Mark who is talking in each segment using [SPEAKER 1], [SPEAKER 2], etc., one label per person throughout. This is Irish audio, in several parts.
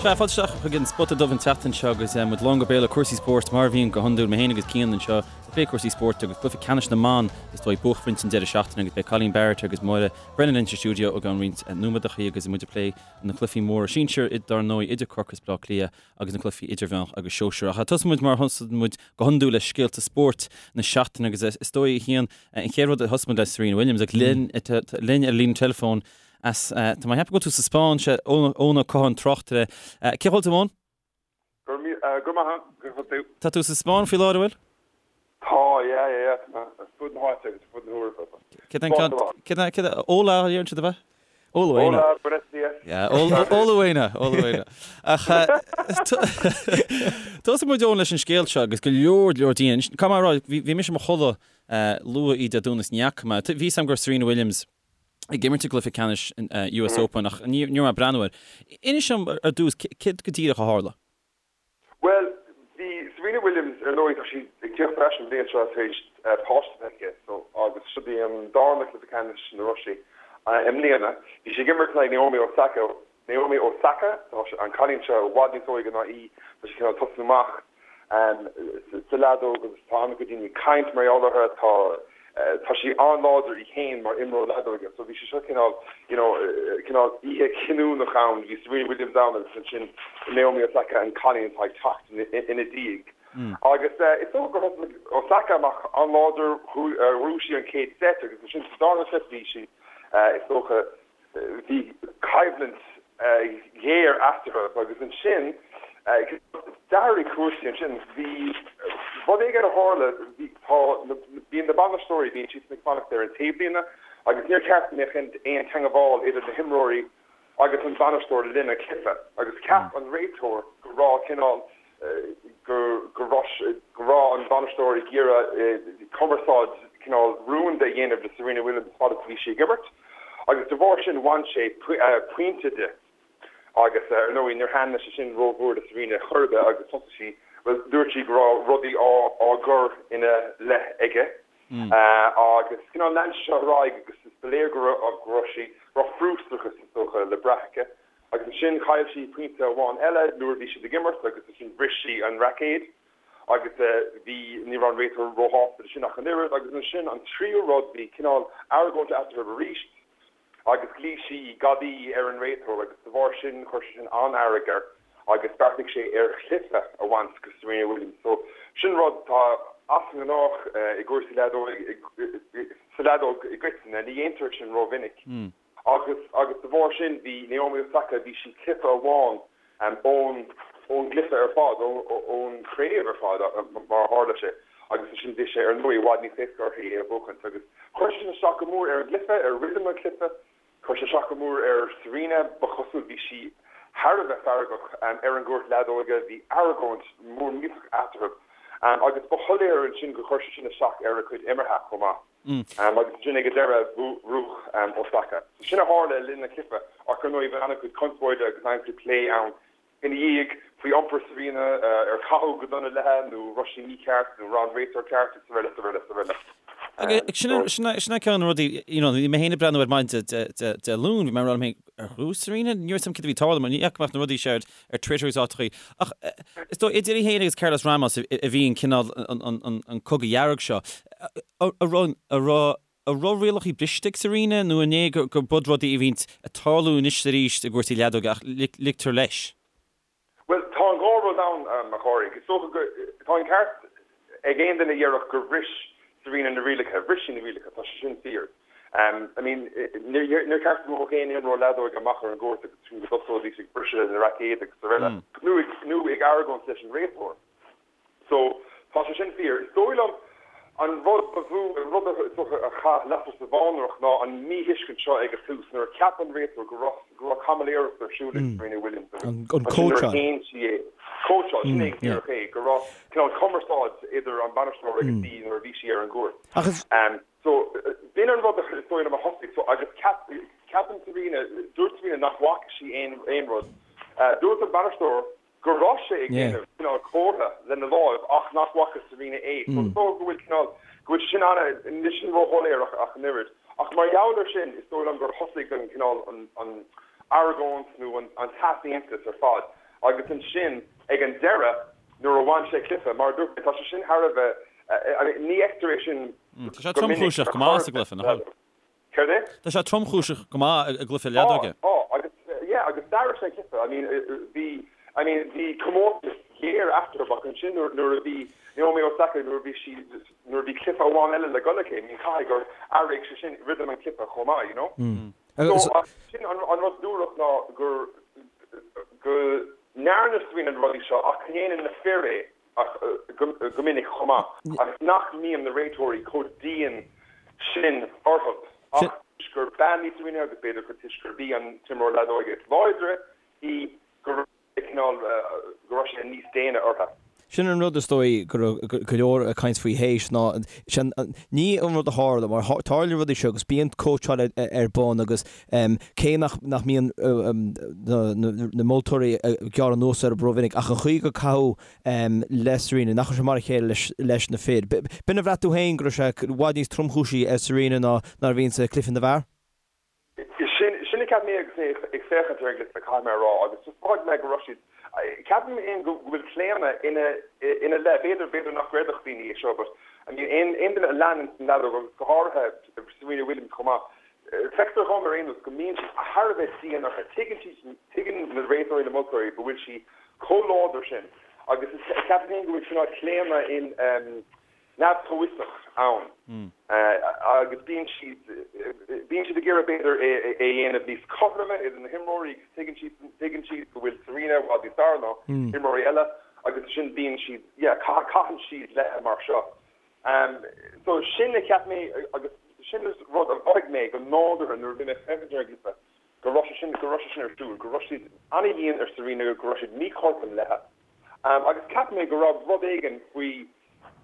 [SPEAKER 1] Sea, fáilte isteach chuig an Spota Dubh an tseachtain seo agus muid lán go béal le cúrsaí spóirt, mar a bhíonn go hiondúil, mé féin agus Cian anseo ag plé cúrsaí spóirt agus cluiche ceannais na mban is dóigh buaicphointe an deireadh seachtaine agus beidh Colleen Barrett agus Máire Brennan linn sa stiúideo i gceann roinnt nóiméadachaí agus muid ag plé na cluichí móra sinsir, dar ndóigh, idir Corcaigh is Bleá Cliath agus na cluichí idirmheánach agus sóisearach. Ach tosóidh muid mar a thosaíonn muid go hiondúil le scéalta spóirt na seachtaine agus is dóigh a Chian, an chéad rud a thosaigh muid le Serena Williams agus linn linn ar líne teileafóin As, tá mé ag ceapadh go bhfuil tú sa Spáinn, sea, Eoin Ó Catháin, tráchtaire. Cén chaoi a bhfuil tú, Eoin?
[SPEAKER 2] Go raibh maith agat, go bhfuil tú?
[SPEAKER 1] Tá tú sa Spáinn faoi láthair, an bhfuil?
[SPEAKER 2] Tá, yeah, yeah, yeah, tá mé ar fud na háite agus ar fud na hEorpa.
[SPEAKER 1] Céard é an ceann, céard é, céard é, hola a deireann siad, ab ea?
[SPEAKER 2] Hola, Hola, buenos días.
[SPEAKER 1] Yeah, hola, hola buena, hola buena. Ach tosóidh muid, Eoin, leis an scéal seo agus go leor, leor daoine, caithfidh mé a rá, bhí mise i mo chodladh luath oíche Dé Domhnaigh is ní fhaca mé, bhí fhios agam go raibh Serena Williams ag imirt i gcluiche ceannais an US Open ach ní raibh mé ag breathnú air. Inis dom ar dtús céard go díreach a tharla?
[SPEAKER 2] Bhuel, bhí Serena Williams, ar ndóigh, tá sí ag tíocht ar ais an bhliain seo tar éis páiste a bheith aici so agus seo í an darna cluiche ceannais ina raibh sí i mbliana. Bhí sí ag imirt in aghaidh Naomi Osaka, Naomi Osaka, tá an cailín seo i bhfad níos óige ná í, tá sí cineál tosnú amach sa leadóg agus tá an-chuid daoine ag caint mar gheall uirthi, tá tá sí an-láidir í féin mar imreoir leadóige so bhí sé seo cineál you know cineál oíche chinniúnach ann, bhí Serena Williams ann agus ansin Naomi Osaka an cailín atá ag teacht ina diaidh. Agus is dócha gur thosaigh Osaka amach an-láidir, bhuaigh sí an chéad set agus ansin sa darna set bhí sí is dócha Bhí coimhlint ghéar eatarthu agus ansin d'athraigh cúrsaí ansin. Bhí rud éigin a tharla, bhí, tá, bíonn na bainisteoirí, bíonn siadsan ag fanacht ar an taobhlíne agus níor cheart go mbeadh aon teangabháil idir na himreoirí agus an bainisteoir le linn an chluiche agus cheap an réiteoir go raibh cineál go raibh an bainisteoir ag iarraidh cumarsáid cineál rúnda a dhéanamh le Serena Williams fad is a bhí sí ag imirt agus de bharr sin bhain sé pointe di agus ar ndóigh níor thaitin sé sin rómhór le Serena chor ar bith agus thosaigh sí, bhuel dúirt sí go raibh rudaí á gcur ina leith aige agus cineál lean sé seo ar aghaidh agus ba léir go raibh sí, go raibh frustrachas is dócha le brath aici. Agus ansin chaill sí pointe amháin eile nuair a bhí siad ag imirt agus ansin bhris sí an raicéad agus bhí, ní raibh an réiteoir róshásta le sin ach an oiread. Agus ansin an tríú rud, bhí cineál argóint eatarthu arís agus ghlaoigh sí gadaí ar an réiteoir agus de bharr sin chuir sé sin an-fhearg air agus bheartaigh sé ar chluiche a bhaint de Serena Williams. So sin rud atá as an ngnách i gcúrsaí leadóige, sa leadóg i gcoitinne, ní dhéantar sin rómhinic. Agus, agus de bharr sin, bhí Naomi Osaka, bhí sí cluiche amháin ón, ón gcluiche ar fad, ón chraobh ar fad, mar a tharla sé. Agus ansin bhí sé, ar ndóigh, i bhfad níos éasca uirthi é a bhuachaint. Agus chuir sé sin isteach go mór ar an gcluiche, ar rithim an chluiche. Chuir sé isteach go mór ar Serena, ba chosúil, bhí sí thar a bheith feargach ar an gcúirt leadóige, bhí argóint mhór millteach eatarthu. Agus ba shoiléir ansin gur chuir sé sin isteach ar a cuid imeartha chomh maith. Agus ansin ag an deireadh, bhuaigh Osaka. So sin a tharla le linn an chluiche ach ar ndóigh bhí an-chuid conspóide agus an-chuid plé ann ina dhiaidh faoi iompar Serena, ar caitheadh go dona léi nó raibh sí mícheart nó raibh an réiteoir ceart agus araile is araile is araile.
[SPEAKER 1] Agus sin é ceann de na rudaí, you know, bhí mé féin ag breathnú ar maidin Dé Luain, bhí mé ag rá liom féin, ar bhuaigh Serena? Ní raibh a fhios agam céard a bhí ag tarlú mar ní fhaca mé ach na rudaí seo ar ar Twitter agus áiteachaí. Ach is dóigh idir í féin agus Carlos Ramos a bhí an cineál an cogadh dhearg seo. An raibh an raibh rialacha briste ag Serena nó an é gur b'iad rudaí a bhíonn ag tarlú anois is arís i gcúrsaí leadóige ach ligtear leis?
[SPEAKER 2] Bhuel, tá an dhá rud ann, a Phádraig. Is dócha go, tá an ceart ag aon duine a dhéarfadh gur bhris Serena na rialacha. Bhris sí na rialacha, tá sé sin fíor. I mean, níor cheart go mbeadh aon imreoir leadóige amach ar an gcúirt agus go dtosóidís ag briseadh na raicéad agus araile, nó ag, nó ag argóint leis an réiteoir. So, tá sé sin fíor. Is dóigh liom an rud ba mhó, an rud is dócha a chaith lasair sa bhfánaireacht ná an míthuiscint seo ag an tús nuair a cheap an réiteoir go raibh, go raibh caimiléireacht ar siúl ag Serena Williams agus
[SPEAKER 3] An
[SPEAKER 2] ansin nuair a
[SPEAKER 3] cóitseáil.
[SPEAKER 2] shéan sí é. Cóitseáil, sin é go díreach é, go raibh cineál cumarsáid idir an bainisteoir agus í nuair a bhí sí ar an gcúirt.
[SPEAKER 3] Ach is.
[SPEAKER 2] So, b'in an rud is dóigh liom a thosaigh. So, agus ceap, ceapann Serena, dúirt Serena nach bhfaca sí aon, aon rud. Dúirt an bainisteoir go raibh sé ag déanamh cineál comhartha lena láimh ach nach bhfaca Serena é. So is dócha go bhfuil cineál, go bhfuil sé sin ana, níl sin róshoiléir ach an oiread. Ach mar gheall ar sin, is dóigh liom gur thosaigh an cineál, an, an argóint nó an, an t-easaontas ar fad. Agus ansin ag an deireadh nuair a bhain sé cluiche, mar a dúirt mé, tá sé sin thar a bheith, I mean, ní fheictear é sin
[SPEAKER 1] Tá sé go minic tromchúiseach go maith sa gcluiche, nach bhfuil?
[SPEAKER 2] Céard é?
[SPEAKER 1] Tá sé tromchúiseach go maith i gcluiche leadóige.
[SPEAKER 2] Tá, tá, agus, yeah, agus d'athraigh sé an cluiche. I mean, bhí, I mean, bhí comórtas géar eatarthu ach ansin nuair, nuair a bhí Naomi Osaka, nuair a bhí sí, nuair a bhí cluiche amháin eile le dul aici, I mean, caithfidh gur athraigh sé sin rithim an chluiche chomh maith, you know? So, sin an rud dúrach ná gur, go ndearna Serena na rudaí seo ach go ndéanann na fir é go minic chomh maith agus nach mbíonn na réiteoirí chomh dian sin orthu ach toisc gur bean í Serena agus b'fhéidir toisc gurb í an t-imreoir leadóige is láidre í go raibh cineál, go raibh sé níos déine orthu.
[SPEAKER 3] Sin an rud is dóigh go raibh go leor ag caint faoi théis ná sin ní an rud a tharla mar tarlaíonn rudaí seo agus bíonn cóitseáil ar bun agus cé nach nach mbíonn na moltóirí ag gearradh anuas orthu rómhinic ach an chaoi gur caitheadh le Serena nach raibh sé mar a chéile leis leis na fir. B'in a bhraith tú féin go raibh sé i bhfad níos tromchúisí ar Serena ná ná a bhíonn sa cluiche na bhfear?
[SPEAKER 2] Sin a cheap mé agus mé ag féachaint ar an gcluiche, caithfidh mé a rá, agus just mhothaigh mé go raibh siad, ceapaim féin go bhfuil claonadh ina ina leith, b'fhéidir, b'fhéidir nach gcreidfeadh daoine é seo but I mean aon aon duine a leanann an leadóg agus go háirithe Serena Williams chomh maith, feictear dhom ar aon nós go mbíonn siad thar a bheith dian uirthi, tuigeann siad, tuigeann na réiteoirí, na moltóirí go bhfuil sí chomh láidir sin agus ceapaim féin go bhfuil cineál claonadh in neamh-chomhfhiosach ann agus bíonn siad, bíonn siad ag iarraidh b'fhéidir é a dhéanamh níos cothroime idir na himreoirí agus tuigeann siad, tuigeann siad go bhfuil Serena i bhfad níos fearr ná imreoirí eile agus ansin bíonn siad, yeah, caitheann siad léi mar seo. So sin a cheap mé agus sin rud a mhothaigh mé go nádúrtha nuair a bhí mé ag féachaint ar an gcluiche go raibh sé sin, go raibh sé sin ar siúl, go raibh siad an-dhian ar Serena, go raibh siad míchothrom léi. Agus cheap mé go raibh rud éigin faoi,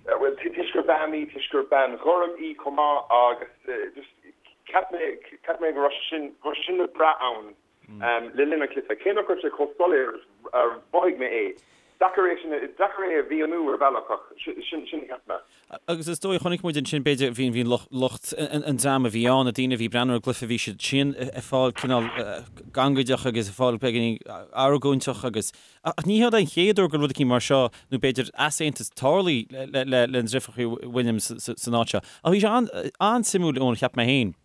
[SPEAKER 2] bhuel, toisc gur bean í, toisc gur bean ghorm í chomh maith agus just cheap mé, cheap mé go raibh sé sin, go raibh sé sin le brath ann le linn an chluiche. Cé nach raibh sé chomh soiléir is a mhothaigh mé é, deacair é sin, deacair é a mhíniú ar bhealach ach sin, sin a cheap mé.
[SPEAKER 1] Agus is dóigh, chonaic muid ansin, b'fhéidir, bhí, bhí lucht an dream a bhí ann, na daoine a bhí ag breathnú ar an gcluiche, bhí siad sin ag fáil cineál gangaideach agus ag fáil beagáinín argóinteach agus, ach ní hé an chéad uair go bhfuil rud eicínt mar seo, nó b'fhéidir easaontas tarlaithe le, le, le na deirfiúracha Williams san áit seo. Ach bhí sé an-suimiúil, Eoin, cheap mé féin.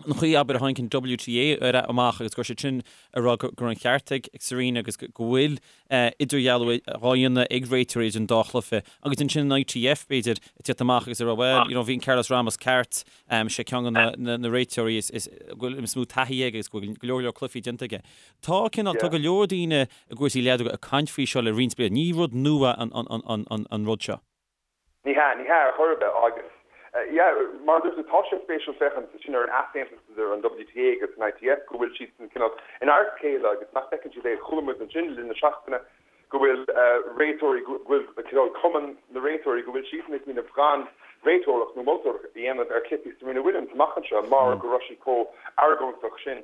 [SPEAKER 1] an chaoi abair a tháinig an WTA ar amach agus go raibh siad sin ag rá go raibh an ceart ag Serena agus go bhfuil idirdhealú á dhéanamh ag réiteoirí idir an dá chluiche agus ansin an ITF b'fhéidir ag tíocht amach agus ag rá well you know bhí an Carlos Ramos ceart, sé ceann de na réiteoirí is is go bhfuil is mó taithí aige agus go bhfuil go leor leor cluichí déanta aige. Tá cineál tá go leor daoine i gcúrsaí leadóga ag caint faoi seo le roinnt bliana. Ní rud nua an an an an rud seo.
[SPEAKER 2] Ní hea, ní hea ar chor ar bith agus yeah, mar a dúirt tú, tá sé spéisiúil féachaint ansin ar an easaontas idir an WTA agus an ITF, go bhfuil siadsan cineál in adharca a chéile agus nach bhfeiceann siad é. Chuala muid ansin le linn na seachtaine go bhfuil réiteoirí, go bhfuil cineál cumann na réiteoirí, go bhfuil siadsan ag smaoineamh gan réiteoireacht nó moltóireacht a dhéanamh ar chluichí Serena Williams amach anseo mar go raibh sí chomh argóinteach sin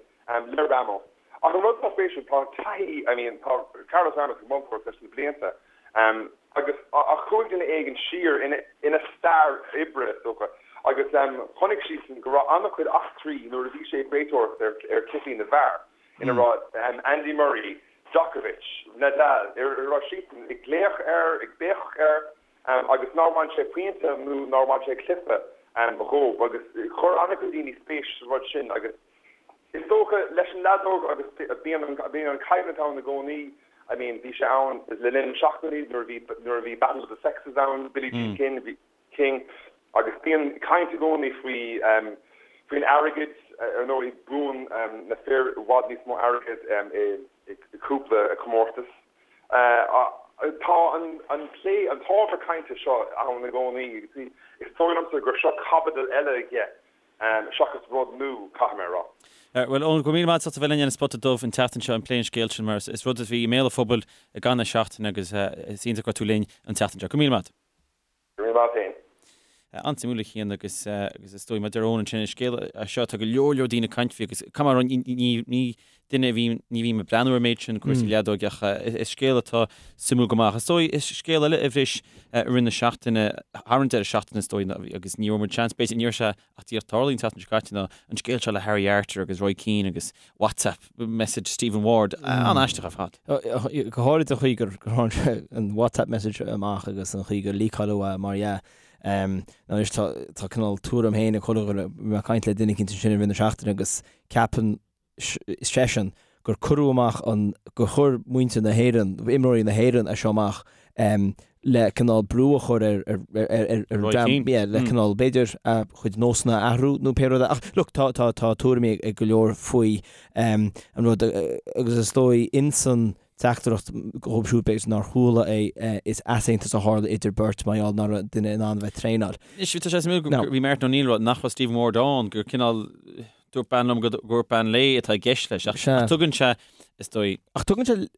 [SPEAKER 2] le Ramos. Ach an rud atá spéisiúil, tá taithí, I mean, tá Carlos Ramos ag moltóireacht leis na blianta agus ach chuaigh duine éigin siar ina, ina stair oibre, is dócha, agus chonaic siadsan go raibh an-chuid eachtraí nuair a bhí sé ag réiteoireacht ar, ar chluichí na bhfear, ina raibh Andy Murray, Djokovic, Nadal, ar a raibh siadsan ag glaoch air, ag béiceach air agus nár bhain sé pointe nó nár bhain sé cluiche dhóibh agus chuir an-chuid daoine spéis sa rud sin agus Is dócha, leis an leadóg agus bíonn an bíonn an coimhlint ann i gcónaí, I mean bhí sé ann le linn na seachtainí nuair a bhí nuair a bhí Battle of the Sexes ann, Billie Jean King, bhí King agus bíonn caint i gcónaí faoi faoin airgead, ar ndóigh buann na fir i bhfad níos mó airgead i i cúpla comórtas. Tá an an plé, an t-ábhar cainte seo ann i gcónaí agus is dóigh liomsa gur seo caibidil eile dhe. Seachas rud nua, caithfidh mé a rá.
[SPEAKER 1] Bhuel, Eoin, go raibh míle maith agat as ucht a bheith linn ar an Spota Dubh an tseachtain seo ag plé an scéil sin mar is rud a bhí i mbéal an phobail i gcaitheamh na seachtaine agus is iontach go raibh tú linn an tseachtain seo. Go raibh míle maith agat.
[SPEAKER 2] Go raibh míle maith agat féin.
[SPEAKER 1] An-suimiúil a Chian agus agus is dóigh mar a deir Eoin ansin is scéal é seo atá go leor leor daoine ag caint faoi agus caithfidh mé a rá ní ní duine a bhí ní bhím ag breathnú ar an méid sin cúrsaí leadóige ach is scéal atá suimiúil go maith. Is dóigh is scéal eile a bhris i rith na seachtaine thar an deireadh seachtaine is dóigh agus ní raibh muid seans b'fhéidir ní raibh sé ach díreach tarlaithe an tseachtain seo caite ná an scéal seo le Harry Arter agus Roy Keane agus WhatsApp message Stephen Ward an-aisteach ar fad.
[SPEAKER 3] Go háirid an chaoi gur tháinig sé an WhatsApp message amach agus an chaoi gur leakáileadh é mar dhea. Anois tá tá cineál tuairim féin ag chuile dhuine, bhí mé ag caint le duine eicínt ansin i rith na seachtaine agus ceapann seisean gur cuireadh amach an, gur chuir muintir na hÉireann, imreoirí na hÉireann é seo amach le cineál brú a chur ar ar ar
[SPEAKER 1] Roy Keane.
[SPEAKER 3] yeah, le cineál b'fhéidir a chuid nósanna a athrú nó pé rud é. Ach look, tá tá tá tuairimí ag go leor faoi an rud agus is dóigh insan teachtaireacht dhóibh siúd b'fhéidir nár chuala é is easaontas a tharla idir beirt mar gheall nach raibh duine in ann a bheith ag traenáil.
[SPEAKER 1] Anois tá sé suimiúil go bhí Martin O'Neill ag rá nach raibh Stephen Ward ann gur cineál Dúirt bean liom gur dúirt bean léi atá i gceist leis, ach
[SPEAKER 3] Sea.
[SPEAKER 1] tugann sé, is dóigh.
[SPEAKER 3] Ach tugann sé,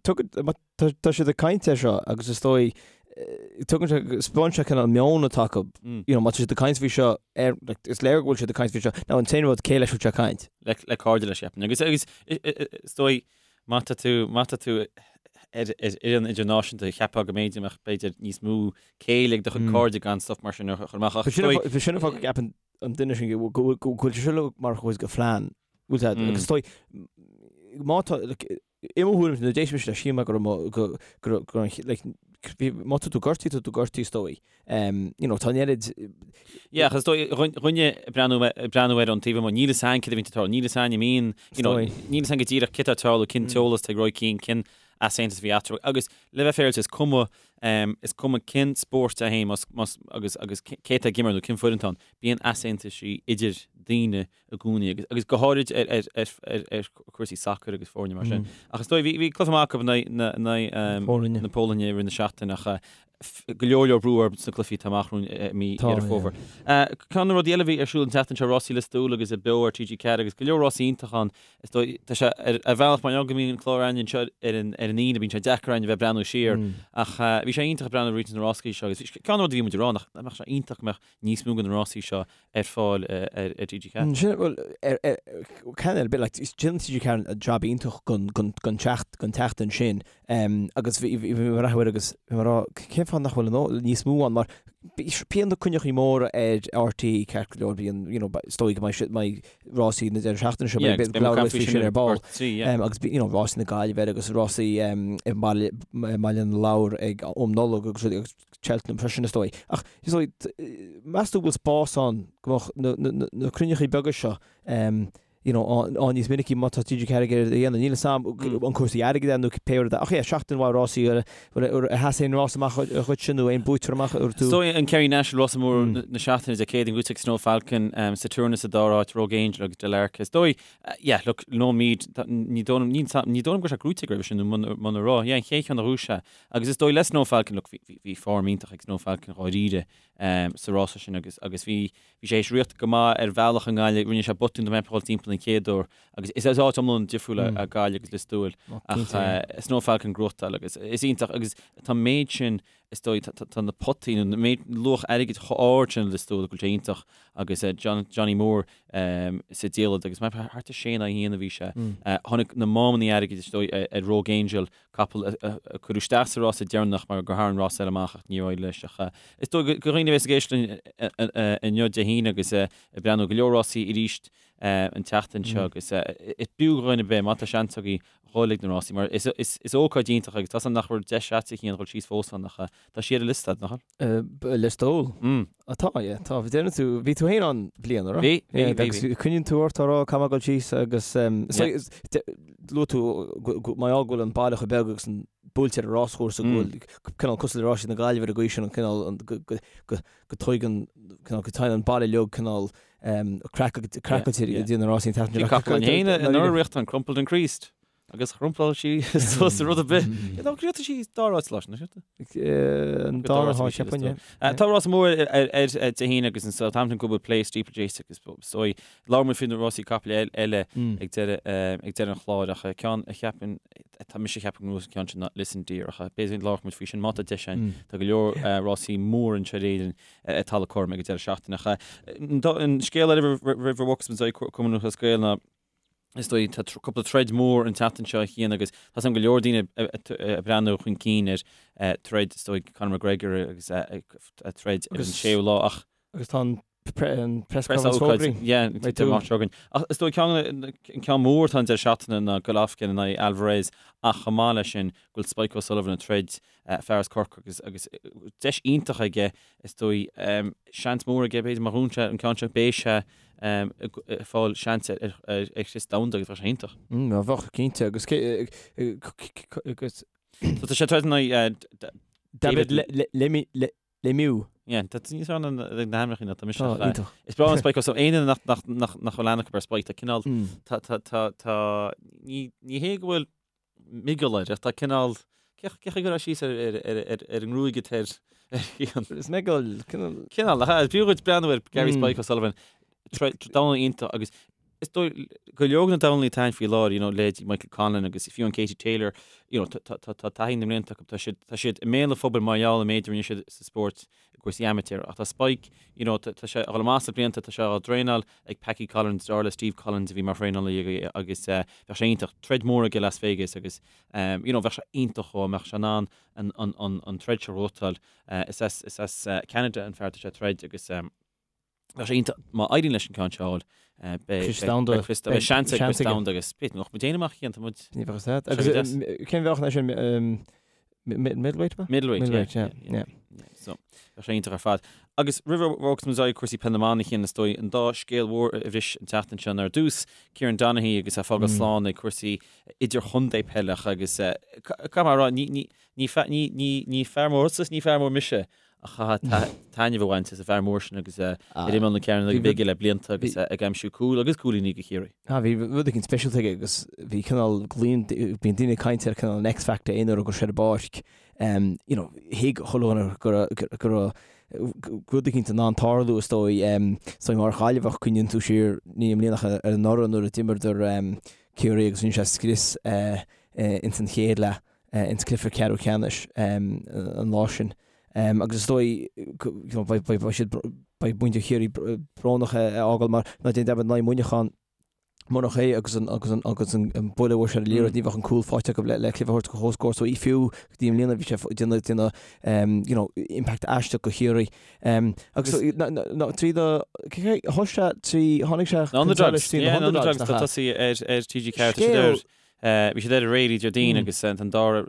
[SPEAKER 3] tugann, má tá, tá siad ag caint air seo agus is dóigh, tugann sé, spáineann sé cineál meon atá acu, you know, má tá siad ag caint faoi seo ar, like, is léir go bhfuil siad ag caint faoi seo. Now, an t-aon rud, cé leis a bhfuil sé ag caint?
[SPEAKER 1] Le, le cairde leis, cheapfainn. Agus, agus, is dóigh, má tá tú, má tá tú ar, ar fhoireann idirnáisiúnta, cheapfá go mb'fhéidir mbeadh, b'fhéidir, níos mó céille ag do chuid cairde gan stuff mar sin a chur amach. Ach
[SPEAKER 3] is dóigh. Sin an fáth go gceapann an duine sin go bhfuil sé seo mar chuid de phlean. Bhfuil sé agus is dóigh má tá like, i mo thuairim nuair a d'éist mise leis shíl mé go raibh go go go like, bhí má tá tú gortaithe tá tú gortaithe is dóigh. Um, you know, tá an oiread
[SPEAKER 1] Yeah, ach is dóigh dhuine ag breathnú ag breathnú air ón taobh amuigh, níl fhios a'inn céard a bhíonn ag tarlú, níl fhios a'inn an mbíonn, you know, níl fhios a'inn go díreach céard atá ag tarlú, cén t-eolas atá ag Roy Keane, cén easaontas a bhí eatarthu. Agus le bheith féaráilte, is cuma, is cuma cén spórt é féin, más, más, agus, agus cé atá ag imirt nó cén foireann atá ann, bíonn easaontaisí idir daoine i gcónaí agus, agus go háirid ar, ar, ar, ar, ar chúrsaí sacair agus foirne mar sin. Ach is dóigh, bhí, bhí cluiche maith acu in aghaidh na, in aghaidh,
[SPEAKER 3] Polainne.
[SPEAKER 1] na Polainne i rith na seachtaine ach go leor leor brú orthu sna cluichí atá amach romhainn i mí Dheireadh Fómhair. Ceann de na rudaí eile a bhí ar siúl an tseachtain seo, Rásaí Lios Tuathail agus beo ar TG4 agus go leor rásaí iontach ann. Is dóigh, tá sé ar bhealach mar go mbíonn an clár againn anseo ar an ar an Aoine, bíonn sé deacair orainn a bheith ag breathnú siar ach bhí sé iontach ag breathnú roinnt de na rásaí seo agus ceann de na rudaí a bhí muid ag rá nach mbeadh sé iontach go mbeadh níos mó de na rásaí seo ar fáil ar ar
[SPEAKER 3] TG4. Sin, bhuel, ar ar ceann ar bith, like, déanann TG4 jab iontach gon gon gon teacht gon tseachtain sin agus bhí bhí mé ag breathnú air agus bhí mé ag rá cén fáth nach bhfuil an níos mó ann mar bíonn na coinneachaí móra ar RTÉ ceart go leor bíonn you know is dóigh go mbeidh mbeidh rásaí na deireadh seachtaine seo
[SPEAKER 1] Yeah, agus
[SPEAKER 3] beidh
[SPEAKER 1] beidh muid ag caint
[SPEAKER 3] faoi
[SPEAKER 1] faoi
[SPEAKER 3] sin ar ball
[SPEAKER 1] ar 3, yeah.
[SPEAKER 3] agus you know rásaí na Gaillimhe agus rásaí i mBaile i mBaile na Lobhar ag um Nollag agus rudaí agus Cheltenham freisin is dóigh. Ach is dóigh meas tú go bhfuil spás ann go mbeadh na na na cruinneachaí beaga seo you know, ann níos minicí má tá TG4 ag iarraidh a dhéanamh. Níl fhios a'm an cúrsaí airgid é nó pé rud é. Ach yeah, seachtain mhaith rásaí, ar sheas aon rás amach dhuitse nó aon buaiteoir amach
[SPEAKER 1] ar tú? Is dóigh an Kerry National rása mór na seachtaine Dé Céadaoin buaite ag Snow Falcon, Saturna sa dara háit, Rogue Angel agus Del Arca. Is dóigh, yeah, look, Lone Mead, ní dóigh liom, ní dóigh liom go raibh sé gnóite roimhe sin nó muna raibh, yeah, an chéad cheann a ghnóthaigh sé. Agus is dóigh le Snow Falcon, look, bhí form iontach ag Snow Falcon dháiríre sa rása sin agus agus bhí Bhí sé théis rith go maith ar bhealach i nGaillimh, rinne sé botún dá mbeifeá ag dul timpeall an chéad uair agus is áit iomlán difriúil é Gaillimh agus Lios Tuathail ach Snow Falcon gnóthachtáil agus is iontach agus tá an méid sin is dóigh tá na potaí nó an méid luach airgid chomh ard sin i Lios Tuathail go bhfuil sé iontach agus Johnny Moore sa diallait agus thart ar sé in aghaidh a haon a bhí sé. Tháinig na mámannaí airgid is dóigh ar Rogue Angel capall a cuireadh isteach sa rása deireanach mar gur tharraing rás eile amach ach níor éirigh leis. Ach is dóigh do dhaoine a bheas ag éisteacht linn inniu Dé hAoine agus ag breathnú go leor rásaí arís an tseachtain seo agus is b'fhiú do dhuine ar bith má tá seans agaibh dhul ag na rásaí mar is ócáid iontach agus tá 's agam nach bhfuil deis a'dsa a Chian dhul síos fós ann ach tá sé ar an liosta nach
[SPEAKER 3] bhfuil? Lios Tuathail? Tá, yeah, tá. Déanann tú, bhí tú féin ann bliain, an raibh?
[SPEAKER 1] Bhí, bhí, bhí, bhí.
[SPEAKER 3] Coinníonn tú ort á rá caithfidh mé dul síos agus luaigh tú mar gheall go bhfuil an baile chomh beag agus an buailte ar an ráschúrsa go bhfuil cineál cosúil le rásaí na Gaillimhe ar an gcaoi sin an cineál go dtuigeann cineál go dtéann an baile uilig cineál craiceáilte i dtír na rásaí an tseachtain
[SPEAKER 1] seo. Bhí capall againn anuraidh, an Crumpled and Creased. Agus chrumpláil sí suas rud ar bith. Ná gnóthaigh sí dara háit leis, nach
[SPEAKER 3] ea? An dara háit, cheapfainn,
[SPEAKER 1] yeah. Tá rás mór ar Dé hAoine agus an Southampton Goodwood Plate Steeplechase agus is dóigh labhróidh muid faoi na rásaí capaill eile ag deireadh ag deireadh an chláir ach ceann a cheapann tá mise ag ceapadh go ngnóthóidh an ceann sin ná Listen Dear ach b'fhéidir go labhróidh muid faoi sin má tá deis againn. Tá go leor rásaí mór anseo in Éirinn ar talamh cothrom ag an deireadh seachtaine ach an scéal eile roimh a bhogfas muid ar aghaidh Cumann Lúthchleas Gael ná Is dóigh, tá cúpla troid mór an tseachtain seo a Chian agus tá 's agam go leor daoine ag breathnú chun cinn ar troid, is dóigh, Conor McGregor agus a troid ar an séú lá
[SPEAKER 3] ach. Agus tá an press conference fógraithe.
[SPEAKER 1] Yeah, tá amach seo againn. Ach is dóigh ceann, an ceann mór atá an deireadh seachtaine ná Golovkin in aghaidh Alvarez ach chomh maith leis sin go bhfuil Spike O'Sullivan ag troid fear as Corcaigh agus agus deis iontach aige is dóigh, seans mór aige b'fhéidir má ghnóthaíonn sé an ceann seo beidh sé ag fáil seans ar chrios domhanda agus bheadh sé iontach.
[SPEAKER 3] Bheadh, cinnte, agus agus.
[SPEAKER 1] So tá sé ag troid in aghaidh
[SPEAKER 3] David Lemieux.
[SPEAKER 1] Yeah, tá tú níos fearr ná na hainmneacha ná tá mise. Tá, iontach. Is breá liom Spike O'Sullivan, aon duine nach nach nach nach bhfuil aithne acu ar Spike, tá cineál, tá tá tá tá ní ní hé go bhfuil miogal air, ach tá cineál, cé chaoi a gcuirfeá síos ar ar ar ar ar an ngruaig atá air
[SPEAKER 3] ar Chian? Is miogal,
[SPEAKER 1] cineál. Cineál, ach is b'fhiú dhuit breathnú ar Gary Spike O'Sullivan, dornálaí iontach agus is dóigh go leor de na dornálaithe atá ann faoi láthair, you know, leithéidí Michael Conlan agus fiú an Katie Taylor, you know, tá tá tá taithí na mblianta acu, tá siad tá siad i mbéal an phobail mar gheall an méid a rinne siad sa spórt i gcúrsaí amateur ach tá Spike, you know, tá tá sé ag dul amach sna blianta, tá sé á dtraenáil ag Packie Collins, deartháir le Steve Collins a bhí mar thraenálaí aige agus eh, bheadh sé iontach, troid mór aige i Las Vegas agus eh, you know, bheadh sé iontach dhó, mbeadh sé in ann an an an an troid seo a ghnóthachtáil. Eh, is as is as eh, Canada an fear atá sé ag troid agus eh, Bheadh sé iontach má éiríonn leis an ceann seo a fháil.
[SPEAKER 3] Beidh beidh
[SPEAKER 1] seans ag crios domhanda agus b'fhéidir nach muid aon amach chéan tá muid.
[SPEAKER 3] Ní bheadh a fhios agat. Agus cén mheáchan é sin middleweight
[SPEAKER 1] ba? Middleweight, yeah. Yeah. So bheadh sé iontach ar fad. Agus roimh a bhogfas muid ar aghaidh cúrsaí peile na mban a Chian is dóigh an dá scéal mhór a bhris an tseachtain seo ná ar dtús Kieran Donaghy agus é ag fágáil slán ag cúrsaí idirchontae peile agus caithfidh mé a rá ní ní fear mór thusa is ní fear mór mise Ach chaithfeá taitneamh a bhaint as an bhfear mór sin agus é ar imeall na cearnóige bige le blianta agus é ag aimsiú cúl agus cúilíní do Chiarraí.
[SPEAKER 3] Ah, bhí rud éigin speisialta aige agus bhí cineál, bíonn daoine ag caint ar cineál an X-Factor aon uair a raibh sé ar an bpáirc. You know, thuig chuile dhuine go raibh, go raibh rud éicint in ann tarlú is dóigh. Is dóigh mar Ghaillimheach cuimhníonn tú siar ní i mbliana ach ar anuraidh nuair a d'imreadar Ciarraí agus rinne sé scrios ins an chéad leath. ins cluiche ceathrú ceannais an lá sin. Agus is dóigh beidh siad beidh muintir Chiarraí brónach é a fhágáil mar ná déan dearmad in aghaidh Muineachán murach é agus an agus an agus an buille a bhuail sé ar an liathróid ní bheadh an cúl faighte acu le le cluiche a thabhairt go comhscór so fiú go dtí i mbliana bhí sé déanamh déanamh you know impact aisteach go Chiarraí. Agus trí do thosaigh sé trí tháinig sé
[SPEAKER 1] chun solais trí na Underdogs tá tosaí ar ar TG4 tá siad ar Bhí siad ar aréir Déardaoin agus an dara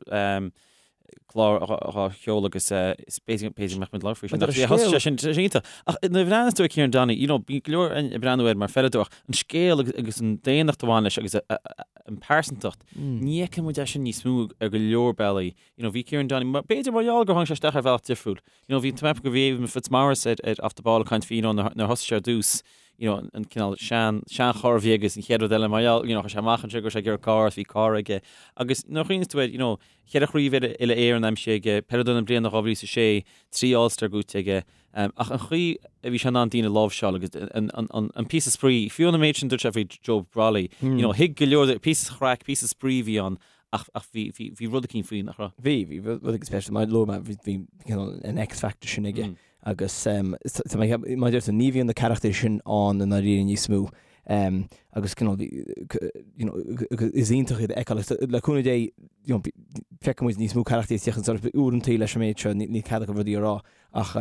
[SPEAKER 1] clár á sheoladh agus b'fhéidir go mbeadh muid ag labhairt faoi sin. Thosaigh sé sin, sé iontach. Ach nuair a bhreathnaíos tú ar Kieran Donaghy, you know, bíonn go leor ag breathnú air mar pheileadóir ach an scéal agus an daonnacht a bhain leis agus an pearsantacht, ní fheiceann muid é sin níos mó ar go leor bealaí. You know, bhí Kieran Donaghy, b'fhéidir mar gheall gur tháinig sé isteach ar bhealach difriúil. You know, bhí, tá mé ag ceapadh go bhí Eamon Fitzmaurice ar, ar Off the Ball ag caint faoi, you know, nuair a thosaigh sé ar dtús, you know, an cineál sean, seancharr a bhí aige agus an chéad rud eile mar gheall, you know, chuir sé amach anseo go raibh sé ag iarraidh carr agus bhí carr aige. Agus nuair a chuimhníos tú air, you know, cheithre chraobh uile-Éireann aimsithe aige, peileadóir na bliana 2006, 3 All-Star gnóite aige, um, ach an chaoi a bhí sé in ann daoine a láimhseáil agus an, an, an, an píosa spraoi, fiú an méid sin dúirt sé faoi Joe Brolly, you know, thuig go leor, píosa chraic, píosa spraoi a bhí ann, Ach, ach bhí, bhí, bhí rud eicínt faoi, nach
[SPEAKER 3] raibh? Bhí, bhí rud eicínt speisialta. Mar a luaigh mé, bhí, bhí cineál an X-factor sin aige. Agus tá mé ag ceapadh, mar a deir tú, ní bhíonn na carachtair sin ann i ndáiríre níos mó. Agus cineál, bhí, you know, is iontach iad a fheiceáil. Agus le cúnamh Dé, you know, feicfidh muid níos mó carachtair ag tíocht chun solais. Uaireantaí leis an méid seo, níl cead acu rudaí a rá. Ach,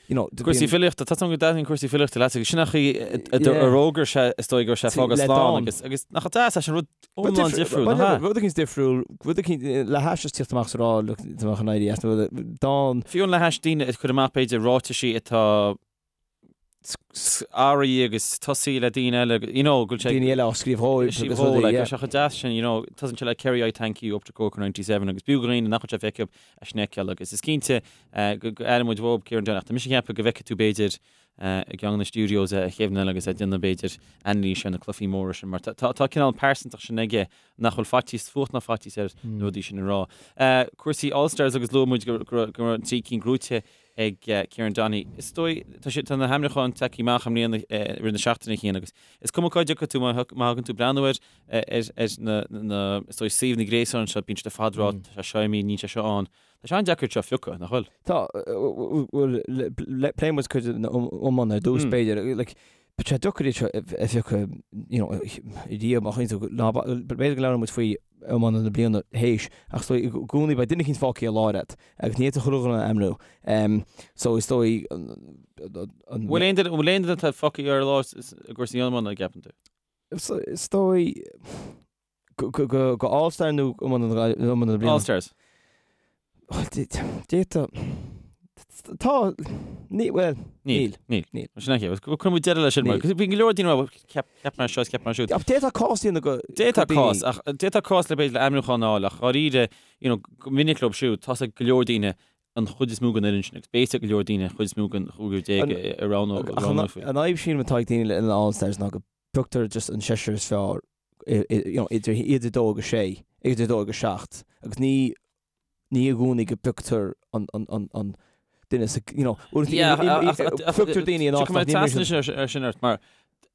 [SPEAKER 1] you know, Cúrsaí filíochta, tá go dtaitníonn cúrsaí filíochta leat agus sin an chaoi a d'fhógair sé is dóigh go raibh sé ag fágáil slán agus agus nach deas é sin rud iomlán difriúil, nach
[SPEAKER 3] ea? Rud eicínt difriúil, rud eicínt le hais is tíocht amach is a rá, look, tá mé chun éirí as,
[SPEAKER 1] dán. Fiú le hais daoine ag cur amach b'fhéidir ráitisí atá airí agus tosaí le daoine eile, you know, go bhfuil
[SPEAKER 3] sé. Daoine eile á scríobh
[SPEAKER 1] dhóibh agus rudaí, yeah. Tá sé chomh deas sin, you know, tosaíonn sé le Kerry I thank you up to Cork 97 agus b'fhiú do dhaoine nach bhfuil sé feicthe acu é sin a fheiceáil agus is cinnte go aireoidh muid uaidh Kieran Donaghy. Tá mise ag ceapadh go bhfeicfidh tú b'fhéidir. i gceann de na studios a Kevin agus é ag déanamh b'fhéidir anailís ar na cluichí móra sin mar tá tá cineál pearsantacht sin aige nach bhfuil faitíos fuacht ná faitíos air na rudaí sin a rá. Cúrsaí All Stars agus luaigh muid go raibh an trí cinn gnóite ag Kieran Donaghy. Is dóigh tá sé tá na hainmniúcháin tagtha amach i mbliana i rith na seachtaine Cian agus is cuma cá dtiocfaidh tú má thagann tú breathnú ar ar ar na na is dóigh suíomhanna gréasáin seo bíonn siad ar fad ag rá tá sé seo imithe níl sé seo ann. Tá sé an-deacair seo a phiocadh, nach bhfuil?
[SPEAKER 3] Tá, bhuel, pléifidh muid cuid den iomáint ar dtús, b'fhéidir. Like, tá sé deacair iad seo a phiocadh, you know, riamh, má chuimhníonn tú, ná, b'fhéidir go labhróidh muid faoi iománaí na bliana théis, ach is dóigh, i gcónaí beidh duine eicínt fágtha ar lár agat, agus ní fhéadfá chuile dhuine a ainmniú. So, is dóigh, an.
[SPEAKER 1] Bhfuil aon duine, bhfuil aon duine atá fágtha ar lár i gcúrsaí iomána, an gceapann tú?
[SPEAKER 3] Is dóigh, Go All Star nó iománaí na bliana?
[SPEAKER 1] All Stars.
[SPEAKER 3] D'fhéadfadh. Tá, ní, bhuel,
[SPEAKER 1] níl. Níl. Níl. Sin é. Cuirfidh muid deireadh leis sin mar bhí go leor daoine ag rá cheap cheap mé seo is cheap mé siúd.
[SPEAKER 3] Ach d'fhéadfadh cás a dhéanamh
[SPEAKER 1] go D'fhéadfadh cás ach d'fhéadfadh cás le b'fhéidir le ainmniúchán a fháil ach dháiríre you know go minic leo siúd tá 's ag go leor daoine an chuid is mó den fhoireann sin agus beidh 's ag go leor daoine an chuid is mó den 15 a roghnófaí.
[SPEAKER 3] An fhadhb sílim atá ag daoine le an All Stars ná go bpioctar just an seisear is fearr you know, idir idir 2 agus 6, idir 2 agus 7, agus ní ní i gcónaí go bpioctar an an an an duine sa you know, pioctar daoine in áit
[SPEAKER 1] nach n-imríonn ar sin ort mar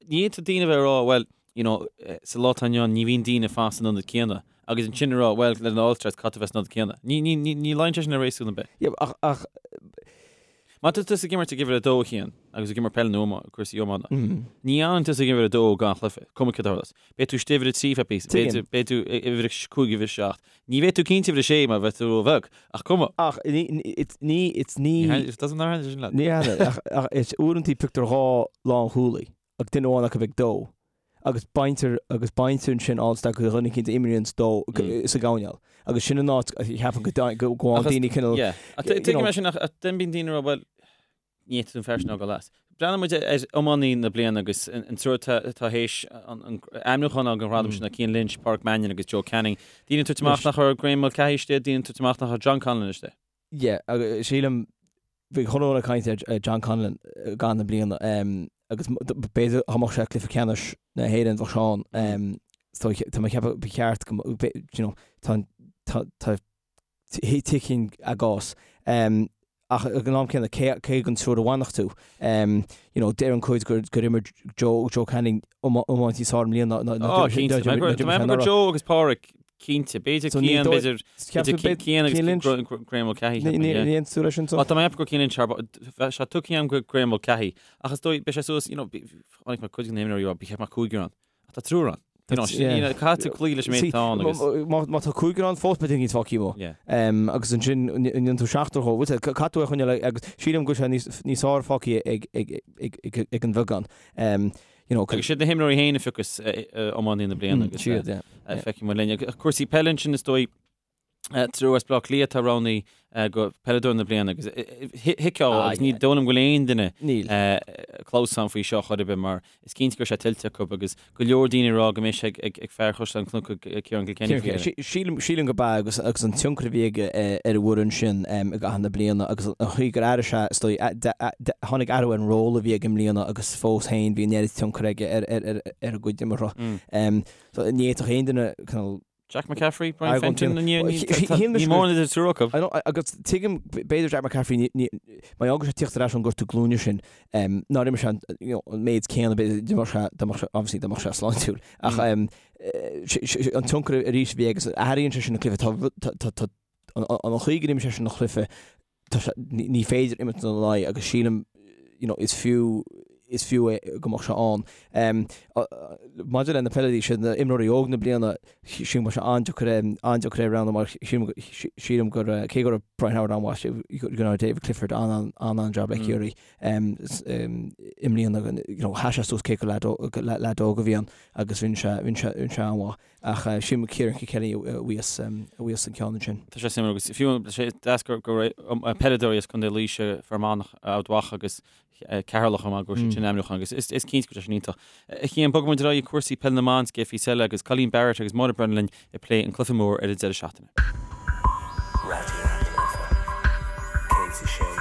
[SPEAKER 1] ní fhéadfadh daoine bheith ag rá well you know, sa lá atá inniu ann ní bhíonn daoine fós san ionad céanna agus ansin a rá well le an All Stars caithfidh tú bheith san ionad céanna. Ní ní ní ní luíonn sé sin le réasún ar bith.
[SPEAKER 3] Yeah, ach ach
[SPEAKER 1] Má tá tusa ag imirt ag uimhir 2 a Chian, agus ag imirt peile nó cúrsaí iomána, ní fhanann tusa ag uimhir 2 gan chluiche, cuma céard a tharlós. Beidh tú istigh uimhir 3 feadh píosa, beidh beidh tú uimhir 5, uimhir 7. Ní bheidh tú cinnte uimhir 6 mar bheidh tú róbheag, ach cuma.
[SPEAKER 3] Ach ní, it's ní, it's ní.
[SPEAKER 1] It doesn't matter sin
[SPEAKER 3] leat. Ní hea, ach ach is uaireanta pioctar dhá lánchúlaí ach duine amháin acu ag dó. agus baintear agus baintear ansin All Star go dhuine eicínt a imríonns dó sa gcoirnéal agus sin an áit a cheapann go go bhfaigheann daoine
[SPEAKER 1] cineál Yeah. Tuigim é sin ach then bíonn daoine ag rá bhuel ní fhéadfaidh an fear sin a fhágáil as. Breathnaíonn muid ar iománaí na bliana agus an triúr atá théis an ainmniúchán a fháil don ghradam sin ná Cian Lynch, Pádraic Mannion agus Joe Canning. Daoine ag tabhairt amach nach raibh Graeme Mulcahy istigh, daoine ag tabhairt amach nach raibh John Conlon istigh.
[SPEAKER 3] Yeah, agus sílim, bhí chuile dhuine ag caint ar John Conlon i gcaitheamh na bliana agus b'fhéidir dá mbeadh sé ag cluiche ceannais na hÉireann bheadh sé ann. So tá mé ag ceapadh ba cheart go you know, tá tá tá tuigim a gcás. Ach ag an am céanna cé cé den triúr a bhainfeadh tú? You know, deireann cuid gur gur imir Joe Joe Canning iomáint níos fearr i mbliana
[SPEAKER 1] ná ná Ó, cinnte. Tá mé ag ceapadh gur Joe agus Pádraic Cinnte, b'fhéidir Cian, b'fhéidir Cian agus Graeme Mulcahy.
[SPEAKER 3] Ní aontaíonn tú leis sin?
[SPEAKER 1] Tá mé ag ceapadh gur Cian Lynch thar bheadh sé tugtha agam go Graeme Mulcahy. Ach is dóigh, beidh sé suas, you know, chonaic mé cuid de na himreoirí ag rá, ba cheart go mbeadh cúigear ann. Ach tá triúr ann. You know, caithfidh tú cloí leis an méid atá ann
[SPEAKER 3] agus. Má tá cúigear ann fós beidh duine eicínt fágtha amuigh. Agus ansin, an ndéanann tú seachtar dhó. Caithfidh tú é a choinneáil agus sílim go bhfuil sé níos fearr fágtha ag an bheagán.
[SPEAKER 1] You know, Agus siad na himreoirí féin a phiocfas iománaí na bliana agus siad, yeah. feicfidh muid linn. Cúrsaí peile ansin is dóigh triúr as Baile Átha Cliath atá roghnaithe go peileadóir na bliana agus thuigfeá agus ní dóigh liom go bhfuil aon duine clamhsán faoi seo chor ar bith mar is cinnte go raibh sé tuillte acu agus go leor daoine ag rá go mbeidh sé ag fear Chaisleán Cnoc Ciarán Kilkenny
[SPEAKER 3] faoi dheireadh. Sílim, sílim go b'ea agus agus an tionchar a bhí aige ar an bhfoireann sin i gcaitheamh na bliana agus an chaoi gur athraigh sé, is dóigh, tháinig athrú ar an ról a bhí aige i mbliana agus fós féin bhí an oiread tionchar aige ar ar ar a gcuid imeartha. So ní fhéadfadh aon duine cineál
[SPEAKER 1] Jack McCaffrey, Brian Fenton, ní mór idir triúr acu.
[SPEAKER 3] Agus tuigim, b'fhéidir Jack McCaffrey, mar gheall go raibh sé ag tíocht ar ais ón gortú glúine sin, nár imir sé an méid céanna, b'fhéidir, dá mbeadh sé, dá mbeadh sé, obviously dá mbeadh sé sláintiúil. Ach an tionchar arís a bhí aige, athraíonn sé sin an cluiche, tá, tá, an chaoi gur imir sé sin an cluiche, tá sé, ní féidir imirt ina aghaidh agus sílim, you know, is fiú, is fiú é go mbeadh sé ann. Maidir le na peileadóirí, siad na imreoirí óg na bliana, sílim go mbeadh sé an-deacair é, an-deacair é a roghnú mar sílim, sílim gur, cé go raibh Brian Howard an-mhaith, go raibh David Clifford an-an-jab le Ciarraí i mbliana, you know, sheas sé suas cé gur leaid óg a bhí ann agus rinne sé, rinne sé, rinne sé an-mhaith. Ach sílim Ciarán Kilkenny a bhuafas a bhuafas an ceann ansin.
[SPEAKER 1] Tá sé suimiúil agus fiú tá sé deas gur go raibh peileadóirí as Contae Laoise, Fear Manach, Ard Mhacha agus Ceatharlach chomh maith go raibh siad sin ainmniúchán agus is is cinnte go raibh sé sin iontach. A Chian, bogfaidh muid ar aghaidh ag cúrsaí peile na mban sa gcéad phíosa eile agus Colleen Barrett agus Máire Brennan linn ag plé an cluiche mór ar an deireadh seachtaine. Raidió na Life 106.4.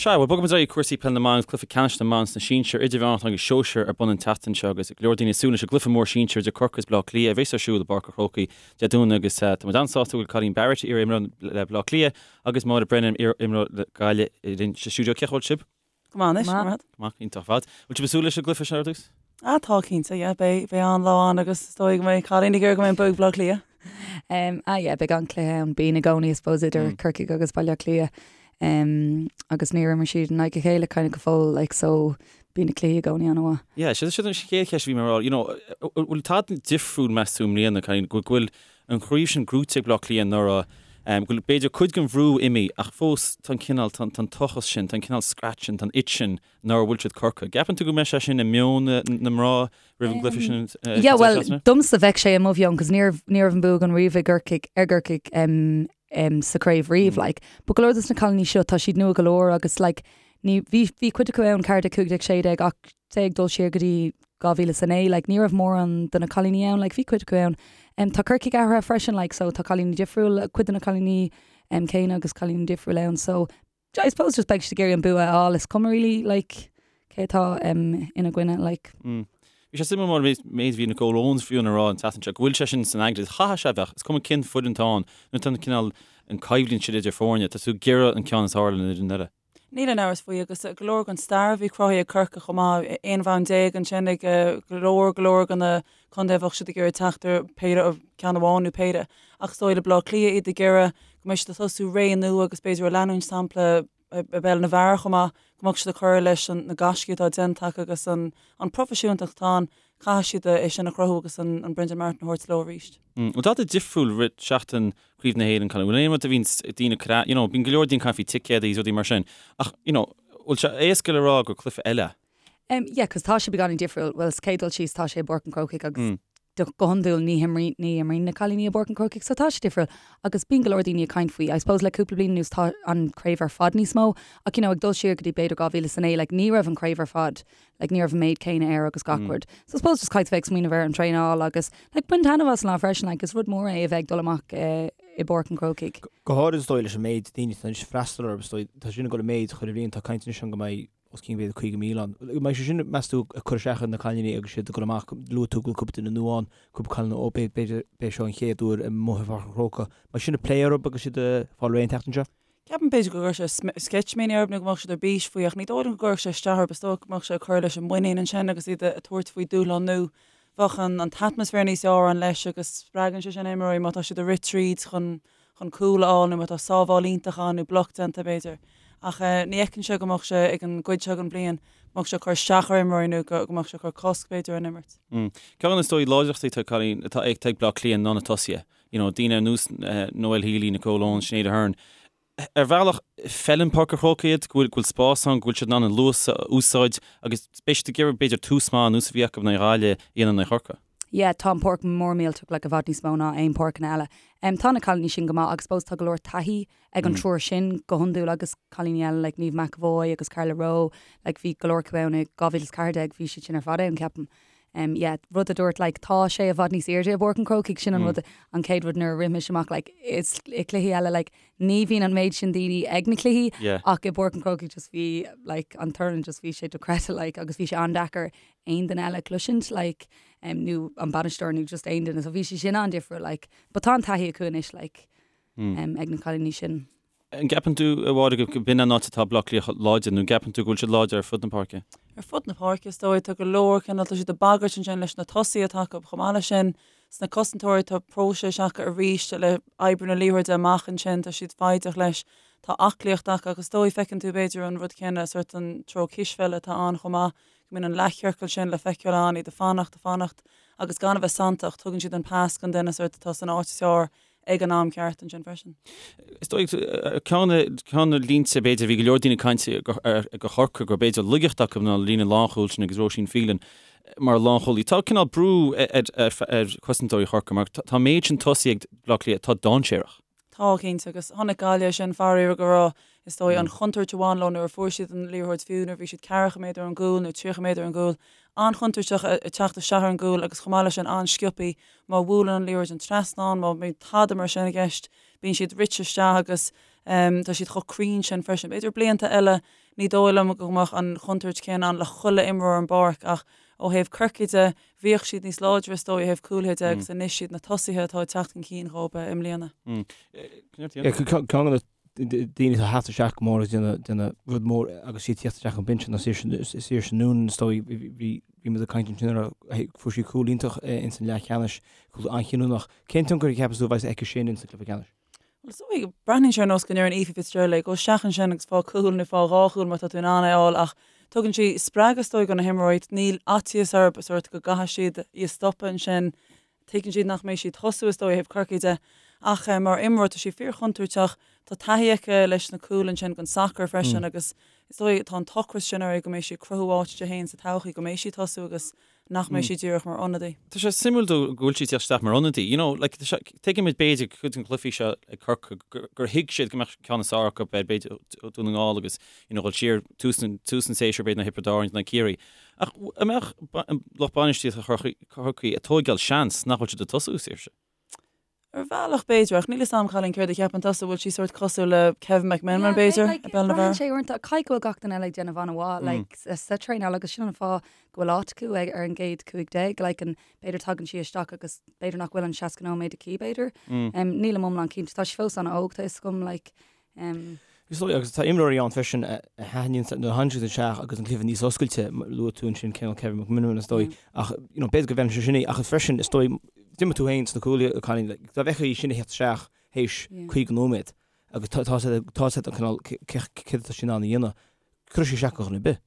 [SPEAKER 1] Sea, bhuel, bogfaimid ar aghaidh cúrsaí peile na mban agus cluiche ceannais na mban sna sinsir, idirmheánach agus sóisir ar bun an tseachtain seo agus go leor daoine ag súil leis an gcluiche mór sinsir idir Corcaigh agus Baile Átha Cliath a bheas ar siúl i bPáirc an Chrócaigh Dé Domhnaigh agus tá muid an-sásta go bhfuil Colleen Barrett, iar-imreoir le Baile Átha Cliath agus Máire Brennan, iar-imreoir le Gaillimh linn sa stiúideo. Cén chaoi a bhfuil sibh?
[SPEAKER 4] Go maith anois, go maith.
[SPEAKER 1] Go maith, iontach ar fad. Bhfuil sibh ag súil leis an gcluiche seo ar dtús?
[SPEAKER 4] Ah, tá cinnte, yeah, beidh, beidh an-lá ann agus is dóigh go mbeidh Colleen ag iarraidh go mbeidh an bua ag Baile Átha Cliath.
[SPEAKER 5] Um, ah yeah, beidh an-chluiche ann, bíonn i gcónaí, I suppose, idir mm. Corcaigh agus Baile Átha Cliath. Um, agus níor imir siad in aghaidh a chéile kind of go fóill, like, so bíonn na cluichí i gcónaí an-mhaith.
[SPEAKER 1] Yeah, sin sin an chéad cheist a bhí mé a rá, you know, bhfuil tada difriúil meas tú i mbliana, Colleen, go bhfuil an chraobh sin gnóite ag Baile Átha Cliath anuraidh, go bhfuil b'fhéidir cuid den bhrú imithe ach fós tá an cineál, tá an tochas sin, tá an cineál scratch sin, tá an itch sin nár bhuail siad Corcaigh. Gceapann tú go mbeidh sé sin i meon na mná roimh an gcluiche sin
[SPEAKER 5] an Yeah, well, domsa bheadh sé i mo mheon cos ní raibh, ní raibh an bua againn riamh i gCorcaigh, ar gCorcaigh um, um, sa chraobh riamh, like. But go leor dos na cailíní seo, tá siad nua go leor agus like, ní, bhí, bhí cuid acu ann 14, 15, 16 ach say ag dul siar go dtí 2009, like ní raibh mórán de na cailíní ann, like bhí cuid acu ann. Um, tá Corcaigh athraithe freisin, like so tá cailíní difriúil, cuid de na cailíní um, céanna agus cailíní difriúil ann, so I suppose just beidh siad ag iarraidh an bua a fháil, is cuma really like cé atá um, ina gcoinne, like.
[SPEAKER 1] Mm. Bhí sé suimiúil mar méid a bhí Nicole Owens fiú ag rá an tseachtain seo go bhfuil sé sin san aigne, chaithfeadh sé a bheith, is cuma cén foireann atá ann, nuair atá an cineál an coimhlint sin idir foirne, tá tú ag iarraidh an ceann is fearr ar an fhoireann eile.
[SPEAKER 4] Níl aon amhras faoi agus go leor den stair a bhí cruthaithe ag Corcaigh chomh maith, 11 bhonn ansin ag go leor go leor de na contaetha a bheadh siad ag iarraidh teacht ar péire, ceann amháin nó péire. Ach is dóigh le Baile Átha Cliath iad ag iarraidh go mbeidh siad ag tosú ré nua agus b'fhéidir ag leanúint sampla i bpeil na bhfear chomh maith, go mbeadh siad ag cur leis na gaiscí atá déanta acu agus an proifisiúntacht atá ann, caithfidh siad é sin a chruthú agus an Brendan Martin a thabhairt leo arís.
[SPEAKER 1] Bhfuil tada difriúil rith seachtain Craobh na hÉireann, Colleen, bhfuil aon rud a bhíonn daoine ag cur, you know, bíonn go leor daoine ag caint faoi ticéadaí is rudaí mar sin, ach, you know, bhfuil sé éasca le rá gur cluiche eile?
[SPEAKER 5] Um, yeah, cos tá sé beagáinín difriúil. Bhuel, sa chéad dul síos tá sé i bPáirc an Chrócaigh agus mm. go hiondúil ní himríonn ní imríonn na cailíní i bPáirc an Chrócaigh, so tá sé difriúil. Agus bíonn go leor daoine ag caint faoi. I suppose le cúpla bliain anuas tá an craobh ar fad níos mó, ach you know, ag dul siar go dtí b'fhéidir 2009, like, ní raibh an craobh ar fad like ní raibh an méid céanna air agus gach rud. So I suppose just caithfidh bheith ag smaoineamh ar an traenáil agus like bain taitneamh as an lá freisin like is rud mór é a bheith ag dul amach i bPáirc an Chrócaigh.
[SPEAKER 3] Go háirid is dóigh leis an méid daoine atá anois ag freastal orthu is dóigh tá sin ag dul i méid chuile bhliain tá caint anois ann go mbeidh os cionn b'fhéidir 50,000 ann. Mbeidh sé sin meas tú ag cur isteach ar na cailíní agus siad ag dul amach luaigh tú go bhfuil cúpla duine nua ann cúpla cailín ó b'fhéidir b'é seo an chéad uair amuigh i bPáirc an Chrócaigh. Mbeidh sin ag plé orthu agus siad ag fáil réidh an tseachtain seo?
[SPEAKER 4] Ceapaim b'fhéidir go gcuirfeadh sé sceitimíní orthu nó go mbeadh siad ar bís faoi ach ní dóigh liom go gcuirfeadh sé isteach orthu. Is dóigh go mbeadh sé ag cur leis an muinín ansin agus iad ag tabhairt faoi dúshlán nua. Bheadh an an t-atmaisféar níos fearr ann leis agus spreagann sé sin imreoirí má tá siad ag rith tríd chun chun cúl a fháil nó má tá sábháil iontach ann nó bloc déanta b'fhéidir. Ach ní fheicimse go mbeadh sé ag an gcuid seo den bhliain go mbeadh sé ag cur isteach ar imreoirí nó go mbeadh sé ag cur cosc b'fhéidir ar an imirt.
[SPEAKER 1] Ceann de na is dóigh láidreachtaí atá Colleen atá ag Baile Átha Cliath ná na tosaithe. you know, daoine ar nós Noelle Healy, Nicole Owens, Sinéad Aherne. Ar bhealach, feileann Páirc an Chrócaigh iad, go bhfuil, go bhfuil spás ann, go bhfuil siad in ann an luas a úsáid agus beidh siad ag iarraidh b'fhéidir tús maith ar nós a bhí acu in aghaidh Ghaillimh a dhéanamh in aghaidh Chorcaí.
[SPEAKER 5] Yeah, tá an páirc mór millteach, like, i bhfad níos mó ná aon páirceanna eile. Um, tá na cailíní sin go maith agus suppose tá go leor taithí ag an triúr sin go hiondúil agus cailíní eile like Niamh McEvoy agus Carla Rowe, like bhí go leor acu ann i 2014, bhí siad sin ar fad ann, ceapaim. Em yeah, rud a dúirt like tá sé i bhfad níos airde i bPáirc an Chrócaigh, sin an rud, an chéad rud nuair a rith mise amach like is i cluichí eile like ní bhíonn an méid sin daoine ag na cluichí
[SPEAKER 1] Yeah.
[SPEAKER 5] ach i bPáirc an Chrócaigh just bhí like an torann just bhí sé dochreidte like agus bhí sé an-deacair aon duine eile a chloisint like em nó an bainisteoir nó just aon duine so bhí sé sin an-difriúil like but tá an taithí acu anois like em ag na cailíní sin.
[SPEAKER 1] An gceapann tú, a Mháire, go b'in an áit atá Baile Átha Cliath láidir, nó an gceapann tú go bhfuil siad láidir ar fud na páirce?
[SPEAKER 4] Ar fud na páirce, is dóigh. Tá go leor cineál, tá siad ag bagairt ansin leis na tosaithe atá acu. Chomh maith leis sin, sna cosantóirí, tá próiseas acu arís le oibriú na liathróide amach ansin, tá siad foighdeach leis. Tá aclaíocht acu agus is dóigh, feiceann tú b'fhéidir an rud céanna, sórt an treo cispheile atá ann chomh maith, go mbíonn an leathchiorcal sin le feiceáil ann, iad ag fanacht, ag fanacht agus gan a bheith santach, tugann siad an pas don duine sórt atá san áit is fearr ag an am ceart ansin freisin.
[SPEAKER 1] Is dóigh, ceann de na línte, b'fhéidir, bhí go leor daoine ag caint do Chorcaigh gur b'fhéidir laigeacht acu ná an líne lánchúil sin agus Róisín Phelan mar lánchúlaí. Tá cineál brú ar chosantóirí Chorcaí mar tá an méid sin tosaí ag Baile Átha Cliath atá dainséarach.
[SPEAKER 4] Tá, cinnte, agus chonaic Gaillimh sin faraor go raibh, is dóigh, an chontúirt a bhain leo nuair a fuair siad an liathróid fiú nuair a bhí siad ceathracha méadar ón gcúl nó 30 méadar ón gcúl. An-chontúirteach ag teacht isteach ar an gcúl agus chomh maith leis sin an-sciobthaí. Má bhuaileann an liathróid an trasnán, má bhíonn tada mar sin i gceist, bíonn siad rite isteach agus Tá siad chomh cruinn sin freisin. B'fhéidir blianta eile ní dóigh liom go mbeadh an chontúirt chéanna ann le chuile imreoir ar an bpáirc ach ó thaobh Corcaigh de, bhíodh siad níos láidre is dóigh ó thaobh cúlaithe de agus anois siad na tosaithe atá ag teacht chun cinn dhóibh i mbliana.
[SPEAKER 3] Ceann de na daoine atá ag teacht isteach go mór agus déanamh rud mór agus iad ag teacht isteach ón binse ná Saoirse Noonan is dóigh bhí muid ag caint ansin ar fuair sí cúl iontach ins an leathcheannais, cúl an-chinniúnach. Cén tionchar a cheapas tú a bheas aici sin ins an cluiche ceannais?
[SPEAKER 4] Bhuel, is dóigh, breathnaíonn sé ar nós go ndeireann Aoife Fitzgerald léi, gabh isteach ansin agus faigh cúl nó faigh dhá chúl má tá tú in ann é a fháil ach tugann sí spreagadh is dóigh do na himreoirí, níl faitíos orthu sórt go gcaithfidh siad í a stopadh ansin, tuigeann siad nach mbeidh sí ag tosú is dóigh ó thaobh Corcaigh de ach mar imreoir tá sí fíorchontúirteach, tá taithí aici leis na cúil ansin don sacar freisin agus is dóigh tá an t-ocras sin uirthi go mbeidh sí ag cruthú áit di féin sa todhchaí, go mbeidh sí ag tosú agus nach mbeidh sí díreach mar ionadaí.
[SPEAKER 1] Tá sé suimiúil go bhfuil sí ag teacht isteach mar ionadaí. You know, like, tá sé, tuigimid b'fhéidir cuid de na cluichí seo ag Corcaigh gur, gur thuig siad go mbeadh ceann is fearr acu ar b'fhéidir Dún na nGall agus, you know, dhul siar tús an, tús an tséasúir b'fhéidir ná Thiobraid Árann nó Ciarraí. Ach an mbeadh lucht bainistíochta Chorcaí ag tóigeáil seans nach bhfuil siad ag tosú, Saoirse?
[SPEAKER 4] Ar bhealach b'fhéidir, ach níl 'fhios a'm Cailín céard a cheapann tusa, bhfuil sí sórt cosúil le Kevin McMenamin b'fhéidir, i bpeil na
[SPEAKER 5] bhfear? Braitheann sé uaireanta, caithfidh go bhfuil gach duine eile ag déanamh an-mhaith like sa traenáil agus sin an fáth go bhfuil áit acu ag ar an gcéad 15, like an b'fhéidir tagann sí isteach agus b'fhéidir nach bhfuil an 60 nóiméad aici b'fhéidir. Nílim iomlán cinnte, tá sí fós an-óg tá 'fhios agam like
[SPEAKER 3] Is dóigh, agus tá imreoirí ann freisin a thaitníonn nuair a thagann siad isteach agus an cluiche níos oscailte, luaigh tú ansin cineál Kevin McMenamin is dóigh, ach you know b'fhéidir go bhfeileann sé sin í, ach freisin is dóigh, d'imir tú féin sna cúlaithe, a Cailín, like, dá bhfeicfeá í sin ag theacht isteach théis 50 nóiméad agus tá tá sé tá sé cineál céard atá sí in ann a dhéanamh, cuirfidh sí isteach ar dhuine ar bith.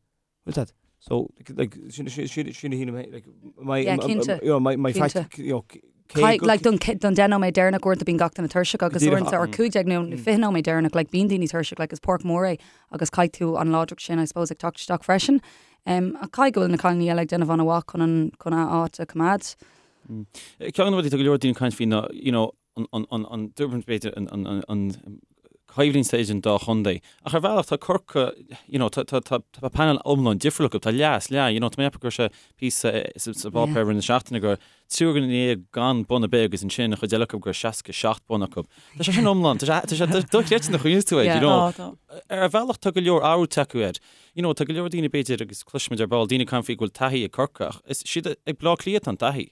[SPEAKER 3] Bhfuil that? So, like, sin, sin, sin, sin a shílim, like, my,
[SPEAKER 5] Yeah, cinnte.
[SPEAKER 3] you know, my, my
[SPEAKER 5] Cinnte.
[SPEAKER 3] fact, you know, cé
[SPEAKER 5] Caith-
[SPEAKER 3] go-
[SPEAKER 5] like, don, don 10 nóiméad deireanach uaireanta bíonn gach duine tuirseach agus
[SPEAKER 3] Díreach,
[SPEAKER 5] uaireanta or 15 nó 20 nóiméad deireanach like, bíonn daoine tuirseach like, is páirc mhór é agus caithfidh tú an láidreacht sin I suppose ag teacht isteach freisin. Um, ach caithfidh go bhfuil na cailíní eile ag déanamh an-mhaith chun an chun a áit a choimeád.
[SPEAKER 1] Ceann de na rudaí tá go leor daoine ag caint faoi ná, you know, an dúbairt b'fhéidir an choimhlint idir an dá chontae. Ach ar bhealach tá Corcaigh, you know, tá tá tá tá panel iomlán difriúil acu, tá leath is leath, you know, tá mé ag ceapadh go raibh sé píosa sa bpáipéar i rith na seachtaine go raibh triúr duine déag gan bonn ar bith agus ansin an chuid eile acu go raibh 67 bonn acu. Tá sé sin iomlán, tá sé tá sé dochreidte nuair a chuimhníos tú air, you know. Ar bhealach tá go leor athrú tagtha air. You know, tá go leor daoine b'fhéidir agus cloisimid ar ball daoine ag caint faoi go bhfuil taithí ag Corcaigh ach is siad ag Bleá Cliath atá an taithí.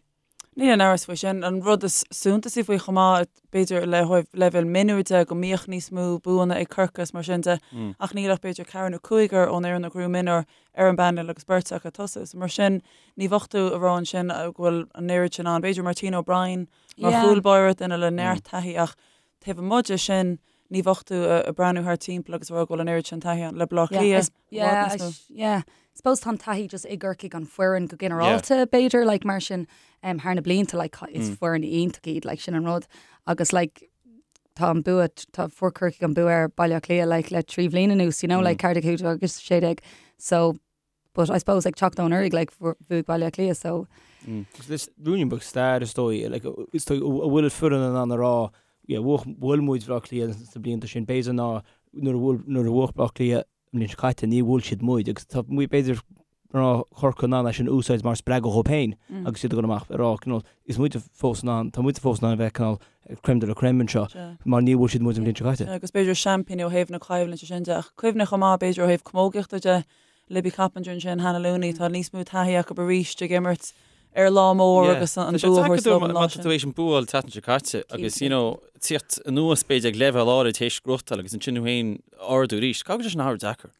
[SPEAKER 4] Níl aon amhras faoi sin. An rud is suntasaí faoi chomh maith, b'fhéidir le leibhéal mionúir de, go mbíodh níos mó buanna ag Corcaigh is mar sin de, ach níl ach b'fhéidir ceathrar nó cúigear ón fhoireann a ghnóthaigh mionúir ar an bpainéal agus beirt acu ag tosú. So mar sin, ní bheadh tú ag rá ansin go bhfuil an oiread sin ann. B'fhéidir Martina O'Brien mar chúl báire, duine le neart taithí ach taobh amuigh de sin, ní bheadh tú ag breathnú thart timpeall agus ag rá go bhfuil an oiread sin taithí ann. Le Bleá Cliath,
[SPEAKER 5] i bhfad níos mó. Yeah, I suppose tá an taithí just i gCorcaigh an foireann go ginearálta b'fhéidir, like mar sin um, thar na blianta like is foireann iontach iad like sin an rud agus like tá an bua tá fuair Corcaigh an bua ar Baile Átha Cliath like le 3 bhliain anuas you know like 14 15 agus 16 so but I suppose ag teacht ó anuraidh like bhuaigh Baile Átha Cliath so
[SPEAKER 3] Is ruainnín beag stair is dóigh like is dóigh a bhfuil foireann in ann a rá yeah bhuaigh bhuail muid Bleá Cliath sna blianta sin b'fhéidir ná nuair a bhuail nuair a bhuaigh Bleá Cliath an bhliain seo caite ní bhuail siad muid agus tá muid b'fhéidir mná Chorcaí in ann é sin a úsáid mar spreagadh dhóibh féin agus iad ag dul amach ag rá you know is muid fós in ann tá muid fós in ann a bheith cineál crème de la crème anseo mar ní bhuail siad muid an bhliain seo caite.
[SPEAKER 4] Agus b'fhéidir seaimpíní ó thaobh na coimhlinte sin de ach cuimhnigh chomh maith b'fhéidir ó thaobh camógaíochta de Libby Coppinger ansin, Hannah Looney, tá níos mó taithí acu arís ag imirt ar lá mór agus an bua a thabhairt leo an
[SPEAKER 1] lá sin. Tá tú éis an bua a fháil an tseachtain seo caite agus you know tíocht anuas b'fhéidir ag leibhéal áirid théis gnóthachtáil agus ansin thú féin ardú arís. Caithfidh go bhfuil sé sin an-deacair.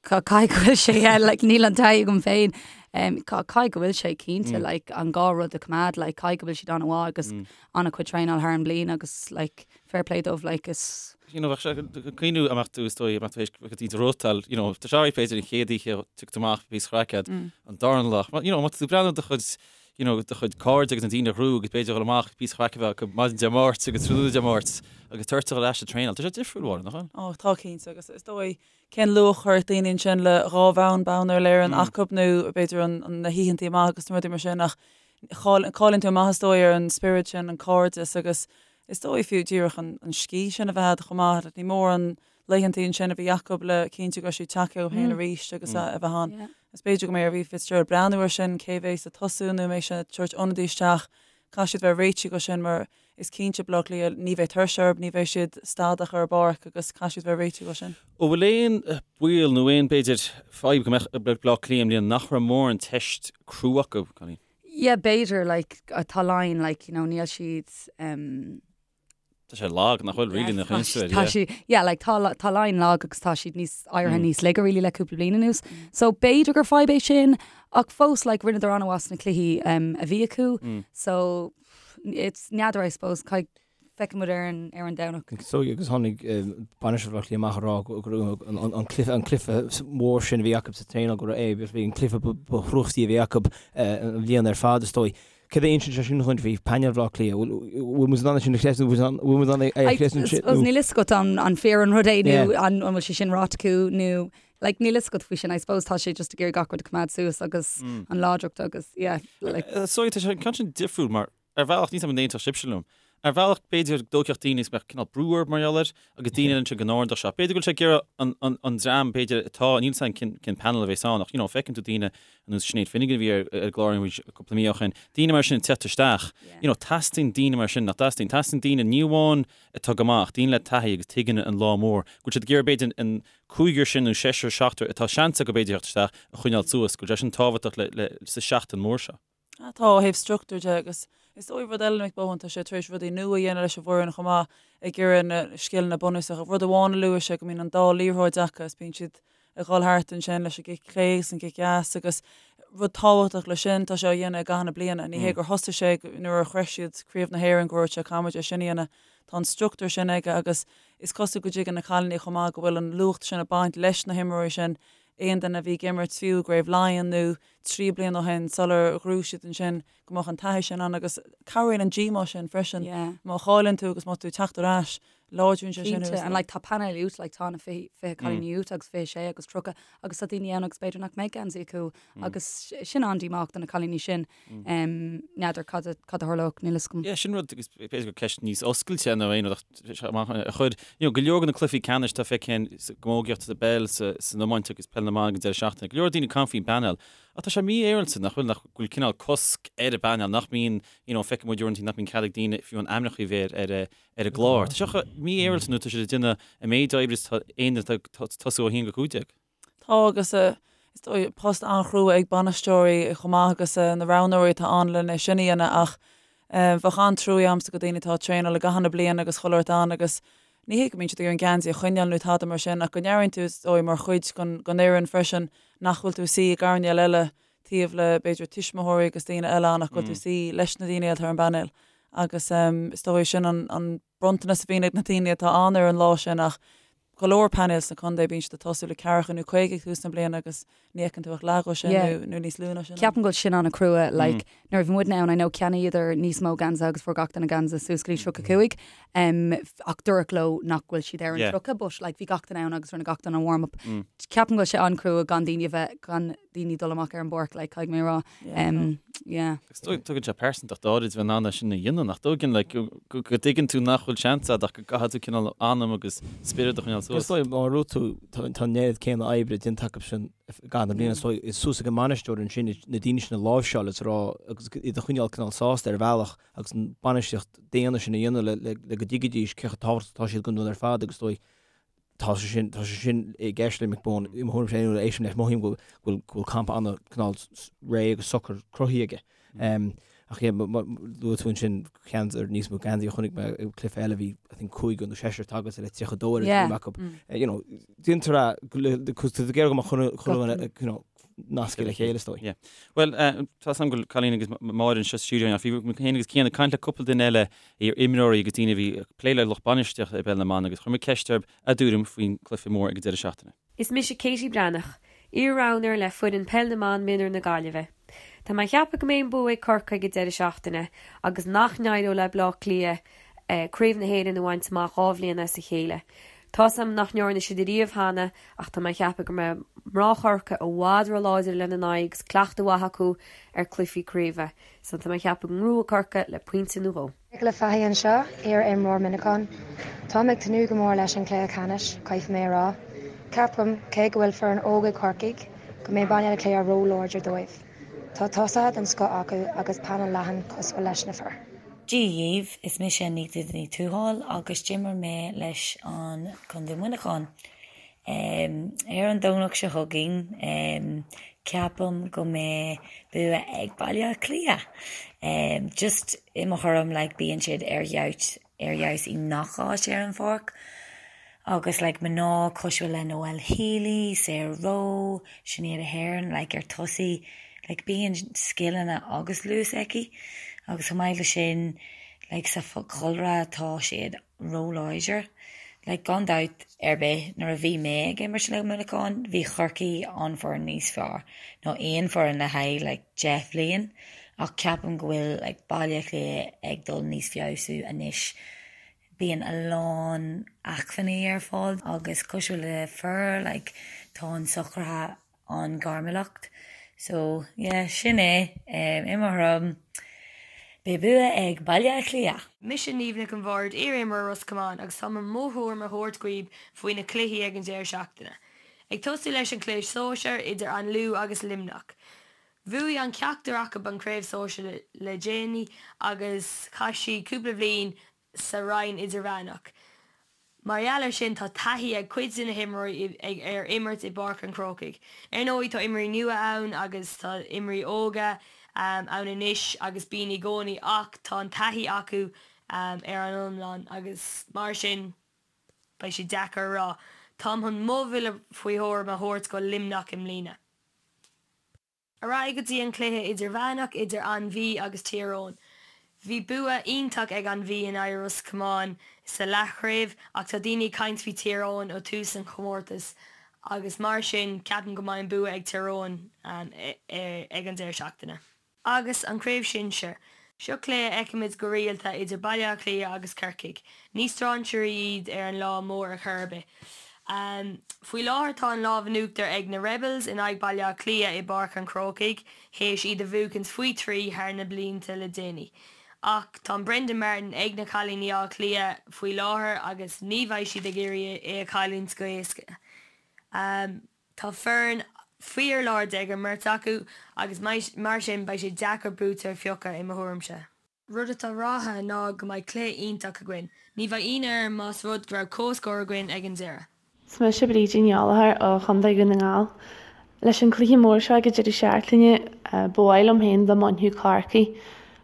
[SPEAKER 5] Caithfidh go bhfuil sé, yeah, like níl an taithí agam féin. Caithfidh go bhfuil sé cinnte, like an dhá rud a choimeád, like caithfidh go bhfuil siad an-mhaith agus an-chuid traenáil thar an mbliain agus like fair play dóibh, like is.
[SPEAKER 1] You know, bheadh sé ag cuimhniú a mbeadh tú is dóigh, a mbeadh tú théis go dtí do rútáil, you know, tá sé b'fhéidir an chéad oíche tiocfaidh tú amach píosa craic agat, an darna lá, you know, má tá tú ag breathnú do chuid, you know, do chuid cairde agus na daoine a ghnóthaigh agus b'fhéidir dhul amach píosa craic a bheith acu maidin Dé Máirt agus tráthnóna Dé Máirt agus tabhairt ar ais ag traenáil. Tá sé difriúil, Mháire, nach bhfuil?
[SPEAKER 4] Ó, tá cinnte agus is dóigh cén luach a chuirfeadh daoine ansin le dhá bhonn bonn Uile-Éireann acu nó b'fhéidir an na hoícheantaí amach agus na rudaí mar sin ach cailleann tú amach is dóigh ar an spiorad sin, an cairdeas agus Is dóigh fiú díreach an scíth sin a bheith agat chomh maith. Ní mór an laethantaí ansin a bhí acu le cinntiú go raibh siad tagtha chucu féin arís agus a bheith ann. Is b'fhéidir go mbeidh ar Aoife Fitzgerald breathnú air sin, cé bhéas ag tosú nó an mbeidh sé ag tabhairt ionadaí isteach. Caithfidh siad bheith réitithe go sin mar is cinnte Baile Átha Cliath ní bheidh tuirse orthu, ní bheidh siad stadach ar an bpáirc agus caithfidh siad bheith réitithe go sin.
[SPEAKER 1] An bhfuil aon baol nó aon, b'fhéidir, fadhb go mbeadh ag Baile Átha Cliath i mbliana nach raibh mórán teist crua acu, Colleen?
[SPEAKER 5] Yeah, b'fhéidir, like, tá Laighin, like, you know, níl siad, um,
[SPEAKER 1] Tá sé lag, nach bhfuil, really, nach
[SPEAKER 5] aon Tá sí, yeah, like, tá, tá Laighin lag agus tá siad níos, éirithe níos laige, really, le cúpla bliain anuas. So, b'fhéidir gur fadhb é sin, ach fós, like, rinneadar an-mhaith sna cluichí um, a bhí acu. So, it's n'fheadar, I suppose, caithfidh, feicfidh muid ar an, ar an Domhnach.
[SPEAKER 3] So, agus tháinig bainisteoir Bhaile Átha Cliath amach ag rá go raibh an, an, an cluiche, an cluiche mór sin a bhí acu sa traenáil go raibh é, bhí an cluiche ba, ba thrúchtaí a bhí acu an bhliain ar fad, is dóigh. Céard a insíonn sé sin dhuit faoi phainéal Bhaile Átha Cliath? Bhfuil muid in ann sin a chreidiúint? Bhfuil muid in ann é a chreidiúint sin?
[SPEAKER 5] Suppose níl fhios agat an fíor an rud é nó an bhfuil sé sin ráite acu nó like níl fhios agat faoi sin. I suppose tá sé just ag iarraidh gach rud a choimeád suas agus an láidreacht agus yeah
[SPEAKER 1] like. So tá sé an ceann sin difriúil mar ar bhealach níl 's agam an aontódh sibhse liom. Ar bhealach b'fhéidir go dtógfadh daoine is mbeadh cineál brú orthu mar gheall air agus daoine eile ansin go n-ardódh sé. B'fhéidir go bhfuil sé ag iarraidh an, an, an dream b'fhéidir atá, níl 's agam cén, cén panel a bheas ann ach you know feiceann tú daoine ar nós Sinéad Finnegan a bhí ar, ar an gclár cúpla mí ó shin, daoine mar sin ag teacht isteach. You know teastaíonn daoine mar sin, nach dteastaíonn? Teastaíonn daoine ní amháin atá go maith ach daoine le taithí agus tuigeann an lá mór. Go bhfuil siad ag iarraidh b'fhéidir an cúigear sin nó seisear, seachtar atá seans acu b'fhéidir theacht isteach a choinneáil suas, go bhfuil sé sin tábhachtach le, le, sa seachtain mór seo.
[SPEAKER 4] Tá, ó thaobh struchtúir de agus is dóigh rud eile Mick Bohan, tá sé tar éis rudaí nua a dhéanamh leis an bhfoireann chomh maith, ag iarraidh na scileanna bunúsacha. Rud amháin a luaigh sé go mbíonn an dá liathróid acu is bíonn siad ag dhul thart ansin leis an gcic clé agus an cic dheas agus rud tábhachtach leis sin, tá sé á dhéanamh i gcaitheamh na bliana. Ní hé gur thosaigh sé nuair a shroich siad Craobh na hÉireann go raibh sé caithfimid é sin a dhéanamh. Tá an struchtúr sin aige agus is cosúil go dtuigeann na cailíní chomh maith go bhfuil an luach sin ag baint leis na himreoirí sin, aon duine a bhí ag imirt fiú i gCraobh Laighean nó 3 bliana ó shin sular ghnóthaigh siad ansin go mbeadh an taithí sin ann agus cabhraíonn an díomá sin freisin má chailleann tú agus má tá tú ag teacht ar ais láidríonn sé
[SPEAKER 5] sin. Cinnte and like tá painéal uait like tá na 20 20 cailíní uait agus 26 agus 30 agus tá daoine ann agus b'fhéidir nach mbeidh geansaí acu agus sin an-díomách do na cailíní sin. N'fheadar cad a cad a tharlódh níl fhios agam.
[SPEAKER 1] Yeah sin rud agus b'fhéidir gur ceist níos oscailte nó aon rud ach amach a chuir you know go leor de na cluichí ceannais atá feicthe sa gcamógaíocht sa bpeil sa san iomáint agus peil na mban ag an deireadh seachtaine. Go leor daoine ag caint faoin bpainéal ach tá sé mífhéaráilte nach bhfuil nach bhfuil cineál cosc ar an bpainéal nach mbíonn you know feicfidh muid uaireanta nach mbíonn cead ag daoine fiú a n-ainmneacha a bheith ar ar ar an gclár. Tá sé mífhéaráilte nó tá siad ag déanamh an méid oibre is tá aon duine atá ag tosú ó 1-15.
[SPEAKER 4] Tá agus is dóigh post an-chrua ag bainisteoirí chomh maith agus na roghnóirí atá ann lena sin a dhéanamh ach bheadh an-truaí a'msa go daoine atá ag traenáil i gcaitheamh na bliana agus chuile shórt ann agus ní hé go mbíonn siad ag iarraidh an geansaí a choinneáil nó tada mar sin ach go n-airíonn tú is dóigh mar chuid den fhoireann freisin nach bhfuil tú ag suí i gcoirnéal eile taobh le b'fhéidir tuismitheoirí agus daoine eile ann ach go bhfuil tú ag suí leis na daoine atá ar an bpainéal agus is dóigh sin an bronntanas a bhíonn ag na daoine atá ann ar an lá sin ach go leor painéil sna contae bíonn siad ag tosú le ceathracha nó 50 ag tús na bliana agus ní fheiceann tú ach leath dhó sin nó nó níos lú ná
[SPEAKER 5] sin. Ceapaim go bhfuil sin an-chrua like nuair a bhí muidne ann I know cheannaíodar níos mó geansaithe agus fuair gach duine geansaí suas go dtí 35 um, ach dúradh leo nach bhfuil siad ar an Yeah. 30 but like bhí gach duine ann agus rinne gach duine an warm up. Ceapaim go bhfuil sé an-chrua gan daoine a bheith gan daoine dul amach ar an bpáirc like caithfidh mé a rá. Um, yeah.
[SPEAKER 1] Agus tugann sé pearsantacht áirid bheith in ann é sin a dhéanamh, nach dtugann, like, go dtuigeann tú nach bhfuil seans agat ach go gcaithfidh tú cineál anam agus spiorad a choinneáil
[SPEAKER 3] suas. Is dóigh, mar a dúirt tú, tá an oiread céanna oibre déanta acu sin i gcaitheamh na bliana, so is suas ag an mbainisteoir ansin na daoine sin a láimhseáil is a rá agus iad a choinneáil cineál sásta ar bhealach agus an bainistíocht daonna sin a dhéanamh le go dtuigfidís cé chomh tábhachtach atá siad don rud ar fad agus is dóigh Tá sé sin, tá sé sin i gceist le Mick Bohan. I mo thuairimse féin, nuair a éistim leis, mothaím go bhfuil, go bhfuil campa ana cineál réidh agus socair cruthaithe aige. Ach yeah, luaigh tú ansin ceann ar níos mó geansaí a chonaic mé i gcluiche eile, bhí I think cúigear nó seisear tagairt le 32 ar an dream acu. You know, déantar é, cos tá tú ag iarraidh go mbeadh chuile, chuile dhuine, you know, nasctha le chéile is dóigh.
[SPEAKER 1] Yeah. Bhuel, tá 's agam go bhfuil Colleen agus Máire anseo sa stiúideo ach bhí mé féin agus Cian ag caint le cúpla duine eile, iar-imreoirí agus daoine a bhí ag plé le lucht bainistíochta i bpeil na mban agus chuir muid ceist orthu a dtuairim faoin gcluiche mór ag an deireadh seachtaine.
[SPEAKER 6] Is mise Katie Breathnach, iar-roghnóir le foireann Peil na mBan Mionúr na Gaillimhe. Tá mé ag ceapadh go mbeidh an bua ag Corcaigh ag deireadh seachtaine agus nach n-éireoidh le Bleá Cliath Craobh na hÉireann a bhaint amach 2 bhliain as a chéile. Tá's a'm nach ndearna siad ariamh cheana ach tá mé ag ceapadh go mbeidh mná Chorcaí i bhfad ró-láidir lena n-aghaidh agus cleachtadh mhaith acu ar cluichí craoibhe. So tá mé ag ceapadh go ngnóthóidh Corcaigh le pointe nó dhó.
[SPEAKER 7] Nicola Fahy anseo, iar-imreoir Minacon. Táim ag tnúth go mór leis an chluiche ceannais, caithfidh mé a rá. Ceapaim, cé go bhfuil foireann óg ag Corcaigh, go mbeidh Baile Átha Cliath ró-láidir dóibh. Tá tosaithe den scoth acu agus painéal leathan cosúil leis na fir.
[SPEAKER 8] Dia dhaoibh, is mise Anita Ní Tuathail agus d'imir mé leis an Contae Muineachán. Ar an Domhnach seo chugainn, ceapaim go mbeidh bua ag Baile Átha Cliath. Just i mo thuairim like bíonn siad ar fheabhas ar fheabhas i ngach áit ar an pháirc agus like mná cosúil le Noelle Healy, Sarah Rowe, Sinéad Aherne like ar tosaí like bíonn scileanna agus luas aici agus chomh maith le sin like sa chúlra tá siad róláidir. Like gan dabht ar bith nuair a bhí mé ag imirt le Muineachán bhí Corcaigh an foireann níos fearr ná aon foireann le haghaidh like 10 bhliain ach ceapaim go bhfuil like Baile Átha Cliath ag dul níos feabhsú anois. Bíonn a lán acmhainní ar fáil agus cosúil le fir like tá an socruithe an-ghairmiúlacht. So yeah sin é i mo thuairim beidh bua ag Baile Átha Cliath.
[SPEAKER 9] Mise Niamh Nic an Bhaird, iar-imreoir Ros Comáin agus tá mo thuairim a thabhairt dhaoib faoi na cluichí ag an deireadh seachtaine. Ag tosú leis an cluiche sóisear idir An Lú agus Luimneach. Bhuaigh an ceachtar acu an craobh sóisear le déanaí agus chaith siad cúpla bhliain sa roinn idirmheánach. Mar gheall air sin tá taithí ag cuid de na himreoirí ar imirt i bPáirc an Chrócaigh. Ar ndóigh tá imreoirí nua ann agus tá imreoirí óga ann anois agus bíonn i gcónaí ach tá an taithí acu ar an iomlán agus mar sin beidh sé deacair a rá. Táim chun mo bhuille faoi thuairim a thabhairt go Luimneach i mbliana. Ar aghaidh go dtí an cluiche idirmheánach idir An Mhí agus Tír Eoghain. Bhí bua iontach ag An Mhí in aghaidh Ros Comáin sa leathchraobh ach tá daoine ag caint faoi Tír Eoghain ó tús an chomórtais agus mar sin ceapaim go mbeidh an bua ag Tír Eoghain ag an deireadh seachtaine. Agus an Chraobh Shinsir. Seo cluiche a fheicimid go rialta idir Baile Átha Cliath agus Corcaigh. Ní strainséirí iad ar an lá mór ar chor ar bith. Faoi láthair tá an lámh in uachtar ag na Rebels in aghaidh Baile Átha Cliath i bPáirc an Chrócaigh théis iad a bhuachaint faoi thrí thar na blianta le déanaí. Ach tá an Brendan Martin ag na cailíní Átha Cliath faoi láthair agus ní bheidh siad ag iarraidh é a chailliúint go héasca. Tá foireann fíorláidir ag an mbeirt acu agus mar sin beidh sé deacair buaiteoir a phiocadh i mo thuairimse. Rud atá ráithe ná go mbeidh cluiche iontach againn. Ní bheidh ionadh orm más rud go raibh comhscór againn ag an deireadh.
[SPEAKER 10] Is mise Brídín Ní Ghallchóir ó Chontae Dhún na nGall. Leis an cluiche mór seo ag an deireadh seachtaine, ba mhaith liom féin dá mbainfeadh Corcaigh.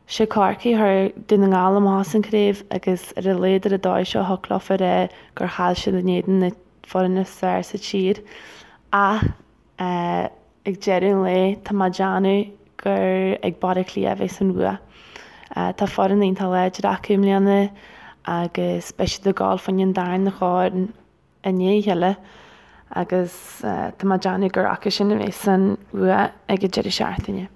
[SPEAKER 10] Sé Corcaigh a chuir Dún na nGall amach as an craobh agus ar a laghad ar an dóigh seo thiocfadh leofa a rá gur chaill siad in éadan na foireann is fearr sa tír ach ag deireadh an lae tá mé ag déanamh gur ag Baile Átha Cliath a bheas an bhua. Tá foireann iontach láidir acu i mbliana agus beidh siad ag gabháil fá choinne an darna chorn i ndiaidh a chéile agus tá mé ag déanamh gur acu sin a bheas an bhua ag an deireadh seachtaine.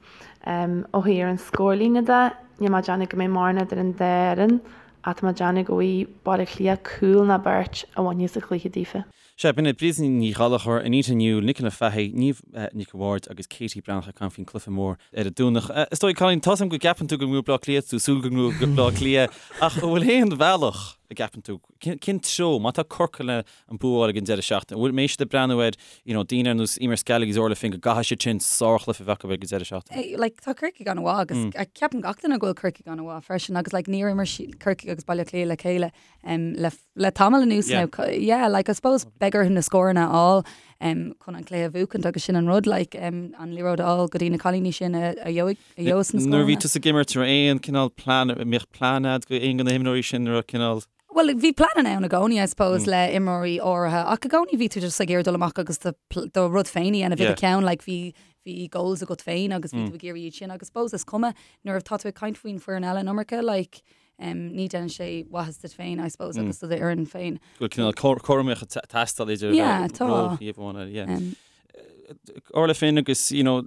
[SPEAKER 10] Ó thaobh an scórlíne de, níl mé ag déanamh go mbeidh mórán idir an dá fhoireann Ach tá mé ag déanamh go bhfaighidh Baile Átha Cliath cúl ná beirt a bhainfidh an cluiche daofa.
[SPEAKER 1] Sea, b'in iad Brídín Ní Ghallchóir, Anita Newell, Nicola Fahy, Niamh Nic an Bhaird agus Katie Breathnach ag caint faoin cluiche mór ar an Domhnach. Is dóigh, Colleen, tá's agam go gceapann tú go ngnóthóidh Bleá Cliath, tú súil go ngnóthóidh Bleá Cliath, ach an bhfuil aon bhealach a gceapann tú, cén treo, má tá Corcaigh le an bua a fháil ag an deireadh seachtaine, an bhfuil, mbeidh siad ag breathnú ar, you know, daoine ar nós Eimear Scally agus Orla Finn go gcaithfidh siad sin sárchluiche a bheith acu ag an deireadh seachtaine?
[SPEAKER 5] Like, tá Corcaigh an-mhaith agus mm. ceapann gach duine go bhfuil Corcaigh an-mhaith freisin agus like, níor imir Corcaigh agus Baile Átha Cliath le chéile um, le, le tamall anuas yeah. now. Yeah, like, I suppose beidh orthu na scóranna a fháil um, chun an cluiche a bhuachaint agus sin an rud like, um, an liathróid a fháil go dtí na cailíní sin a, a gheobhaidh a gheobhas na scóranna.
[SPEAKER 1] Nuair a bhí tusa ag imirt aon cineál plean, mbeadh plean agat go aon de na himreoirí sin raibh cineál
[SPEAKER 5] Bhuel, bhí pleananna ann i gcónaí, I suppose, le imreoirí áirithe, ach i gcónaí bhí tú just ag iarraidh dul amach agus do do rud féin a dhéanamh i do cheann, like bhí bhí goals agat féin agus bhí tú ag iarraidh iad sin agus suppose is cuma nuair atá tú ag caint faoin foireann eile an iomarca, like um, ní déanann sé maitheas duit féin, I suppose, agus do d'fhoireann féin.
[SPEAKER 1] Go bhfuil cineál cothromaíocht ag teastáil idir
[SPEAKER 5] Yeah, tá.
[SPEAKER 1] ról thaobh amháin eile, yeah. Um, Orla Finn agus you know,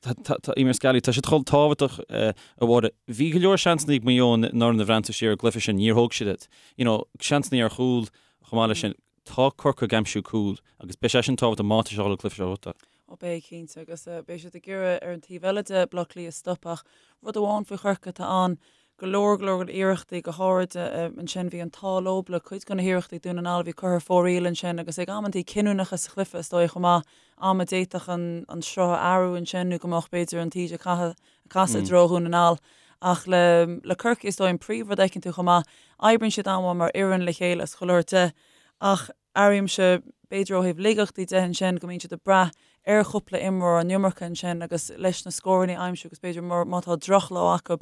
[SPEAKER 1] tá Eimear Scally, tá siad chomh tábhachtach a Mháire. Bhí go leor seansanna ag Maigh Eo in Orna Bhreanta siar i gcluiche sin, níor thóg siad iad. You know, seansanna ar chúl chomh maith leis sin. Tá Corcaigh ag aimsiú cúl agus beidh sé sin tábhachtach má tá sé dhul an cluiche seo a bhuachtáil.
[SPEAKER 4] Ó beidh cinnte agus beidh siad ag iarraidh ar an taobh eile de Bleá Cliath a stop ach rud amháin faoi Chorcaigh atá ann. Go leor, go leor iarrachtaí, go háirid ansin bhí an t-ádh leo le cuid de na hiarrachtaí Dún na nGall a bhí curtha ar fóraoil ansin agus ag amantaí cinniúnacha sa chluiche is dóigh chomh maith, am a d'fhéadfadh an sruth a athrú ansin nó go mbeadh b'fhéidir an taoide ag casadh i dtreo Dhún na nGall. Ach le le Corcaigh is dóigh an príomhrud a fheiceann tú chomh maith, oibríonn siad an-mhaith mar fhoireann le chéile is chuile shórt de ach airímse, b'fhéidir ó thaobh laigeachtaí de ansin, go mbíonn siad ag brath ar chúpla imreoir an iomarca ansin agus leis na scóranna a aimsiú agus b'fhéidir má tá drochlá acu,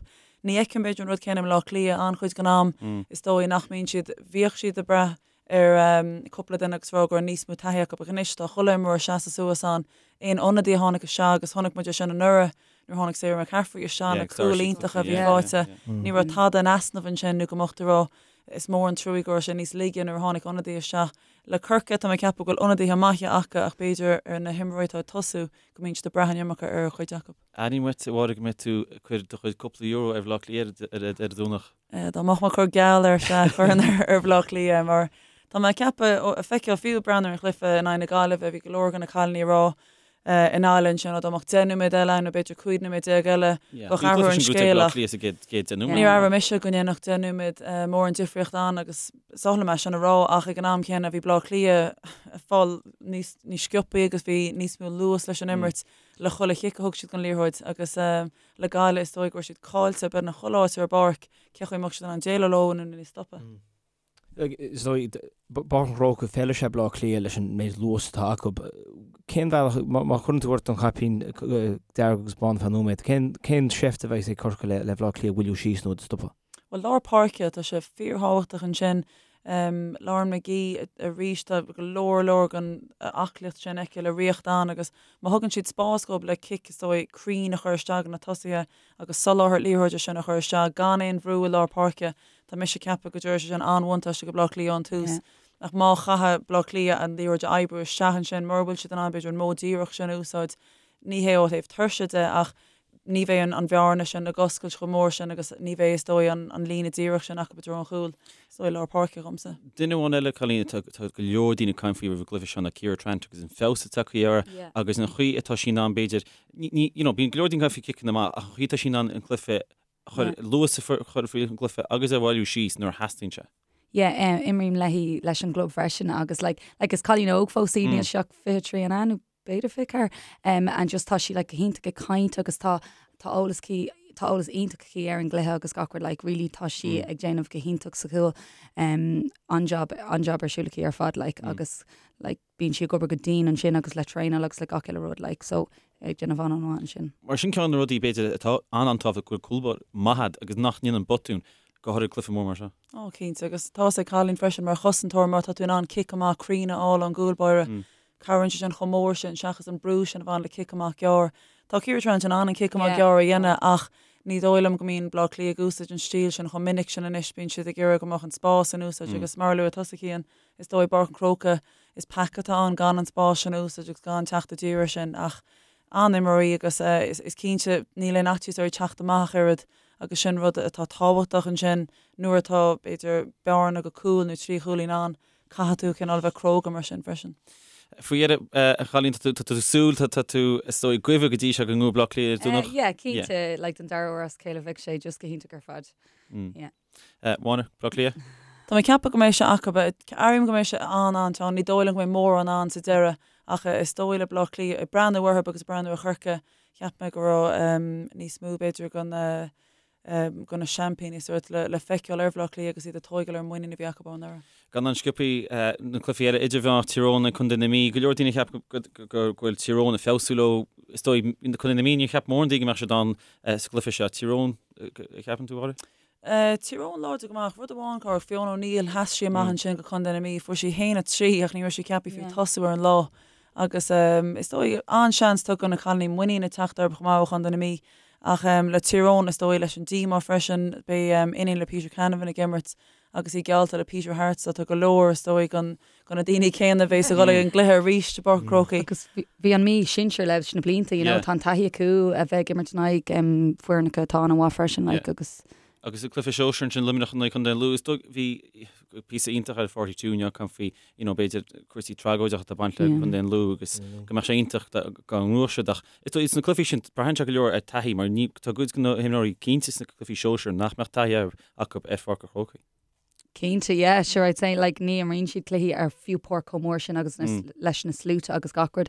[SPEAKER 4] ní fheicim b'fhéidir an rud céanna i mBleá Cliath an-chuid den am, is dóigh nach mbíonn siad, bhíodh siad ag brath ar chúpla duine agus rá go raibh níos mó taithí acu ach anois tá chuile imreoir ag seasamh suas ann, aon ionadaí a tháinig isteach agus chonaic muid é sin anuraidh nuair a tháinig Sarah McCaffrey isteach, na cúil iontacha a bhí faighte, ní raibh tada in easnamh ansin nó go mbeadh tú ag rá Is mór an truaí go raibh sé níos laige nuair a tháinig ionadaí isteach. Le Corcaigh, tá mé ag ceapadh go bhfuil ionadaithe maithe acu ach b'fhéidir ar na himreoirí atá ag tosú go mbíonn siad ag brath an iomarca ar chuid acu.
[SPEAKER 1] Airím uait, a Mháire, go mbeidh tú ag cur do chuid cúpla euro ar Bhaile Átha Cliath ar an Domhnach.
[SPEAKER 4] Dá mbeadh mé ag cur geall air, sea, chuirfinn ar Bhaile Átha Cliath mar tá mé ag ceapadh, ag feiceáil fiú ag breathnú ar an chluiche in aghaidh na Gaillimhe, bhí go leor de na cailíní ag rá i nGaillimh ansin, dá mbeadh 10 nóiméad eile ann nó b'fhéidir 15 nóiméad eile, bheadh athrú ar an scéal ach níor airigh mise go ndéanfadh 10 nóiméad mórán difríocht ann agus is oth liom é sin a rá ach ag an am céanna bhí Baile Átha Cliath ag fáil níos níos sciobthaí agus bhí níos mó luas leis an imirt le chuile chic a thug siad den liathróid agus le Gaillimh is dóigh go raibh siad caillte beagnach chuile áit ar an bpáirc, cé chaoi a mbeadh siad in ann déileáil leo nó níos stopadh.
[SPEAKER 3] Is dóigh, Páirc an Chrócaigh, feileann sé Baile Átha Cliath leis an méid luas atá acu. Cén bhealach, má chuireann tú ort an caipín dearg agus bán ar feadh nóiméad, cén cén seift a bheidh ag Corcaigh le le Baile Átha Cliath a mhoilliú síos nó a stopadh?
[SPEAKER 4] Bhuel, lár páirce, tá sé fíorthábhachtach ansin. Lauren McGee arís, tá go leor leor den aclaíocht sin aici le ríocht ann agus má thugann siad spás dhóibh le cic, is dóigh, cruinn a chur isteach do na tosaithe agus soláthar liathróide sin a chur isteach gan aon bhrú i lár páirce, Tá mise ag ceapadh go dtabharfaidh sé sin an-bhuntáiste go Baile Átha Cliath ón tús. Ach má chaithfidh Baile Átha Cliath an liathróid a oibriú isteach ansin, mura bhfuil siad in ann b'fhéidir an modh díreach sin a úsáid, ní hé ó thaobh tuirse de ach ní bheidh an bhearna sin ag oscailt chomh mór sin agus ní bheidh is dóigh an líne díreach sin acu i dtreo an chúil. Is dóigh lár páirce dhomsa.
[SPEAKER 1] Duine amháin eile, Colleen, tá go leor daoine ag caint faoi roimh an gcluiche seo ná Ciara Trant agus an feabhas atá tagtha uirthi agus an chaoi atá sí in ann b'fhéidir, you know, bíonn go leor daoine ag caint faoi ciceanna amach ach an chaoi atá sí in ann an cluiche chur luas a chur faoi an gcluiche agus a bhailiú síos nuair a theastaíonn sé.
[SPEAKER 5] Yeah, imrím léi leis an gclub freisin agus like, like is cailín óg fós í, níl sí ach 23 an ea nó b'fhéidir 24, um, and just tá sí like go hiontach ag caint agus tá tá eolas aici tá eolas iontach aici ar an gcluiche agus gach rud like really tá sí ag déanamh go hiontach sa chúl um, an-job an-job ar siúl aici ar fad like agus like bíonn sí ag obair go dian ansin agus le traenáil agus le gach uile rud like so ag déanamh an-an-mhaith ansin.
[SPEAKER 1] Mar sin ceann de na rudaí b'fhéidir atá an-an-tábhachtach go bhfuil cúlbáire maith agat agus nach ndéanann botún, go háirithe cluiche mór mar seo.
[SPEAKER 4] Ó cinnte agus tá's ag Colleen freisin mar chosantóir má tá tú in ann cic amach cruinn a fháil ón gcúlbáire cabhraíonn sé sin chomh mór sin seachas an brú sin a bhain le cic amach gearr. Tá Ciara Trant in ann an cic amach gearr a dhéanamh ach ní dóigh liom go mbíonn Bleá Cliath ag úsáid an stíl sin chomh minic sin anois, bíonn siad ag iarraidh go mbeadh an spás in úsáid agus mar a luaigh tusa Cian, Is dóigh i bPáirc an Chrócaigh, is peaca atá ann gan an spás sin a úsáid agus gan teacht i dtír air sin ach an-imreoir í agus is cinnte níl aon fhaitíos uirthi teacht amach ach oiread agus sin rud atá tábhachtach ansin nuair atá, b'fhéidir, bearna go cúl nó 3 chúilín ann, caithfidh tú cineál a bheith cróga mar sin freisin.
[SPEAKER 1] Faoi dheireadh, a Cholleen, tá tú ag súil, tá tú is dóigh ag guibhe go dtí seo go ngnóthóidh Bleá Cliath ar an Domhnach?
[SPEAKER 5] Yeah, cinnte, like don dara huair as a chéile bheadh sé just go hiontach ar fad. Yeah.
[SPEAKER 1] Máire, Bleá Cliath?
[SPEAKER 4] Tá mé ag ceapadh go mbeidh sé acu. Airím go mbeidh sé an-an-teann. Ní dóigh liom go mbeidh mórán ann sa deireadh ach is dóigh le Bleá Cliath, ag breathnú orthu agus ag breathnú ar Chorcaigh, cheap mé go raibh níos mó b'fhéidir de na de na seaimpíní sórt le feiceáil ar Bhleá Cliath agus iad ag tóigeáil ar an muinín a bhí acu ó anuraidh.
[SPEAKER 1] Gan an sciobthaí na cluichí eile idirmheánach Tír Eoghain ag Contae na Mí, go leor daoine a cheap go bhfuil Tír Eoghain ag feabhsú leo. Is dóigh Contae na Mí níor cheap mórán daoine go mbeadh siad ann sa gcluiche seo. Tír Eoghain, a cheapann tú, a Mháire?
[SPEAKER 4] Tír Eoghain láidir go maith. Rud amháin, cá raibh Fiona O'Neill, sheas sí amach ansin go Contae na Mí. Fuair sí 1-3 ach ní raibh sí ceaptha fiú tosú ar an lá. Agus is dóigh, an-seans tugtha do na cailíní muinín ag teacht orthu chomh maith ó Chontae na Mí. Ach le Tír Eoghain, is dóigh, leis an díomá freisin, beidh iníon le Peter Canavan ag imirt agus í geallta le Peter Harte so tá go leor, is dóigh, de na daoine céanna a bheas ag dul ag an gcluiche arís i bPáirc an Chrócaigh.
[SPEAKER 5] Agus bhí an Mhí sinsir leis na blianta, you know, tá an taithí acu a bheith ag imirt in aghaidh foirneacha atá an-mhaith freisin, like, agus.
[SPEAKER 1] Agus i gcluiche sóisir ansin Luimneach in aghaidh Chontae an Lú, is dóigh, bhí. píosa iontach ar 42 inniu ag caint faoi, you know, b'fhéidir cúrsaí tragóideacha atá ag baint le Contae an Lú agus go mbeadh sé iontach dá ngnóthódh siad ach is dóigh sna cluichí sin braitheann sé go leor ar taithí mar ní tá cuid de na himreoirí cinnte sna cluichí sóisir nach mbeadh taithí acu ar Pháirc an Chrócaigh.
[SPEAKER 5] Cinnte, yeah, sure I'd say like ní imríonn siad cluichí ar fiú páirc chomh mór sin agus na, leis na sluaite agus gach rud.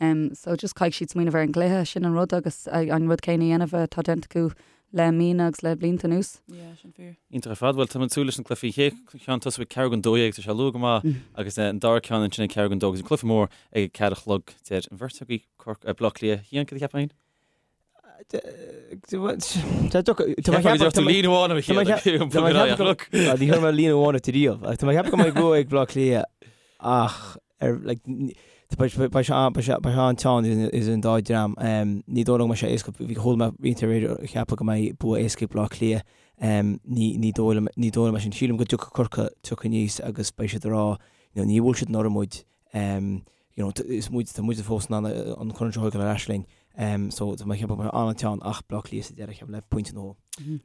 [SPEAKER 5] Um, so just caithfidh siad smaoineamh ar an gcluiche, sin an rud agus an rud céanna a dhéanamh atá déanta acu le míonna agus le blianta anuas.
[SPEAKER 4] Yeah, sin fíor.
[SPEAKER 1] Iontach ar fad. Bhuel, tá muid ag súil leis na cluichí. Chéad cheann tosú ag ceathrú don 12, tá sé luath go maith, agus an dara ceann ansin ag ceathrú don 2 agus an cluiche mór ag 4 a chlog. Deir an bheirt agaibh Corc, Baile Átha Cliath. Cian, cad a cheapfá féin? Líne amháin a
[SPEAKER 3] Ní chuir mé líne amháin ort riamh. Tá mé ag ceapadh go mbeidh bua ag Baile Átha Cliath ach ar like beidh sé an-teann idir an dá dhream. Ní dóigh liom go mbeidh sé éasca, bhí chuala mé roinnt aréir ag ceapadh go mbeidh bua éasca ag Baile Átha Cliath. Ní dóigh liom ní dóigh liom é sin. Sílim go dtiocfaidh Corcaigh tiocfaidh aníos agus beidh siad ag rá níor bhuail siad anuraidh muid. you know, is muid, tá muid fós in ann an corn seo a thógáil ar ais linn. So tá mé ag ceapadh go mbeidh an-teann ach Baile Átha Cliath sa deireadh, ceapaim le pointe nó dhó.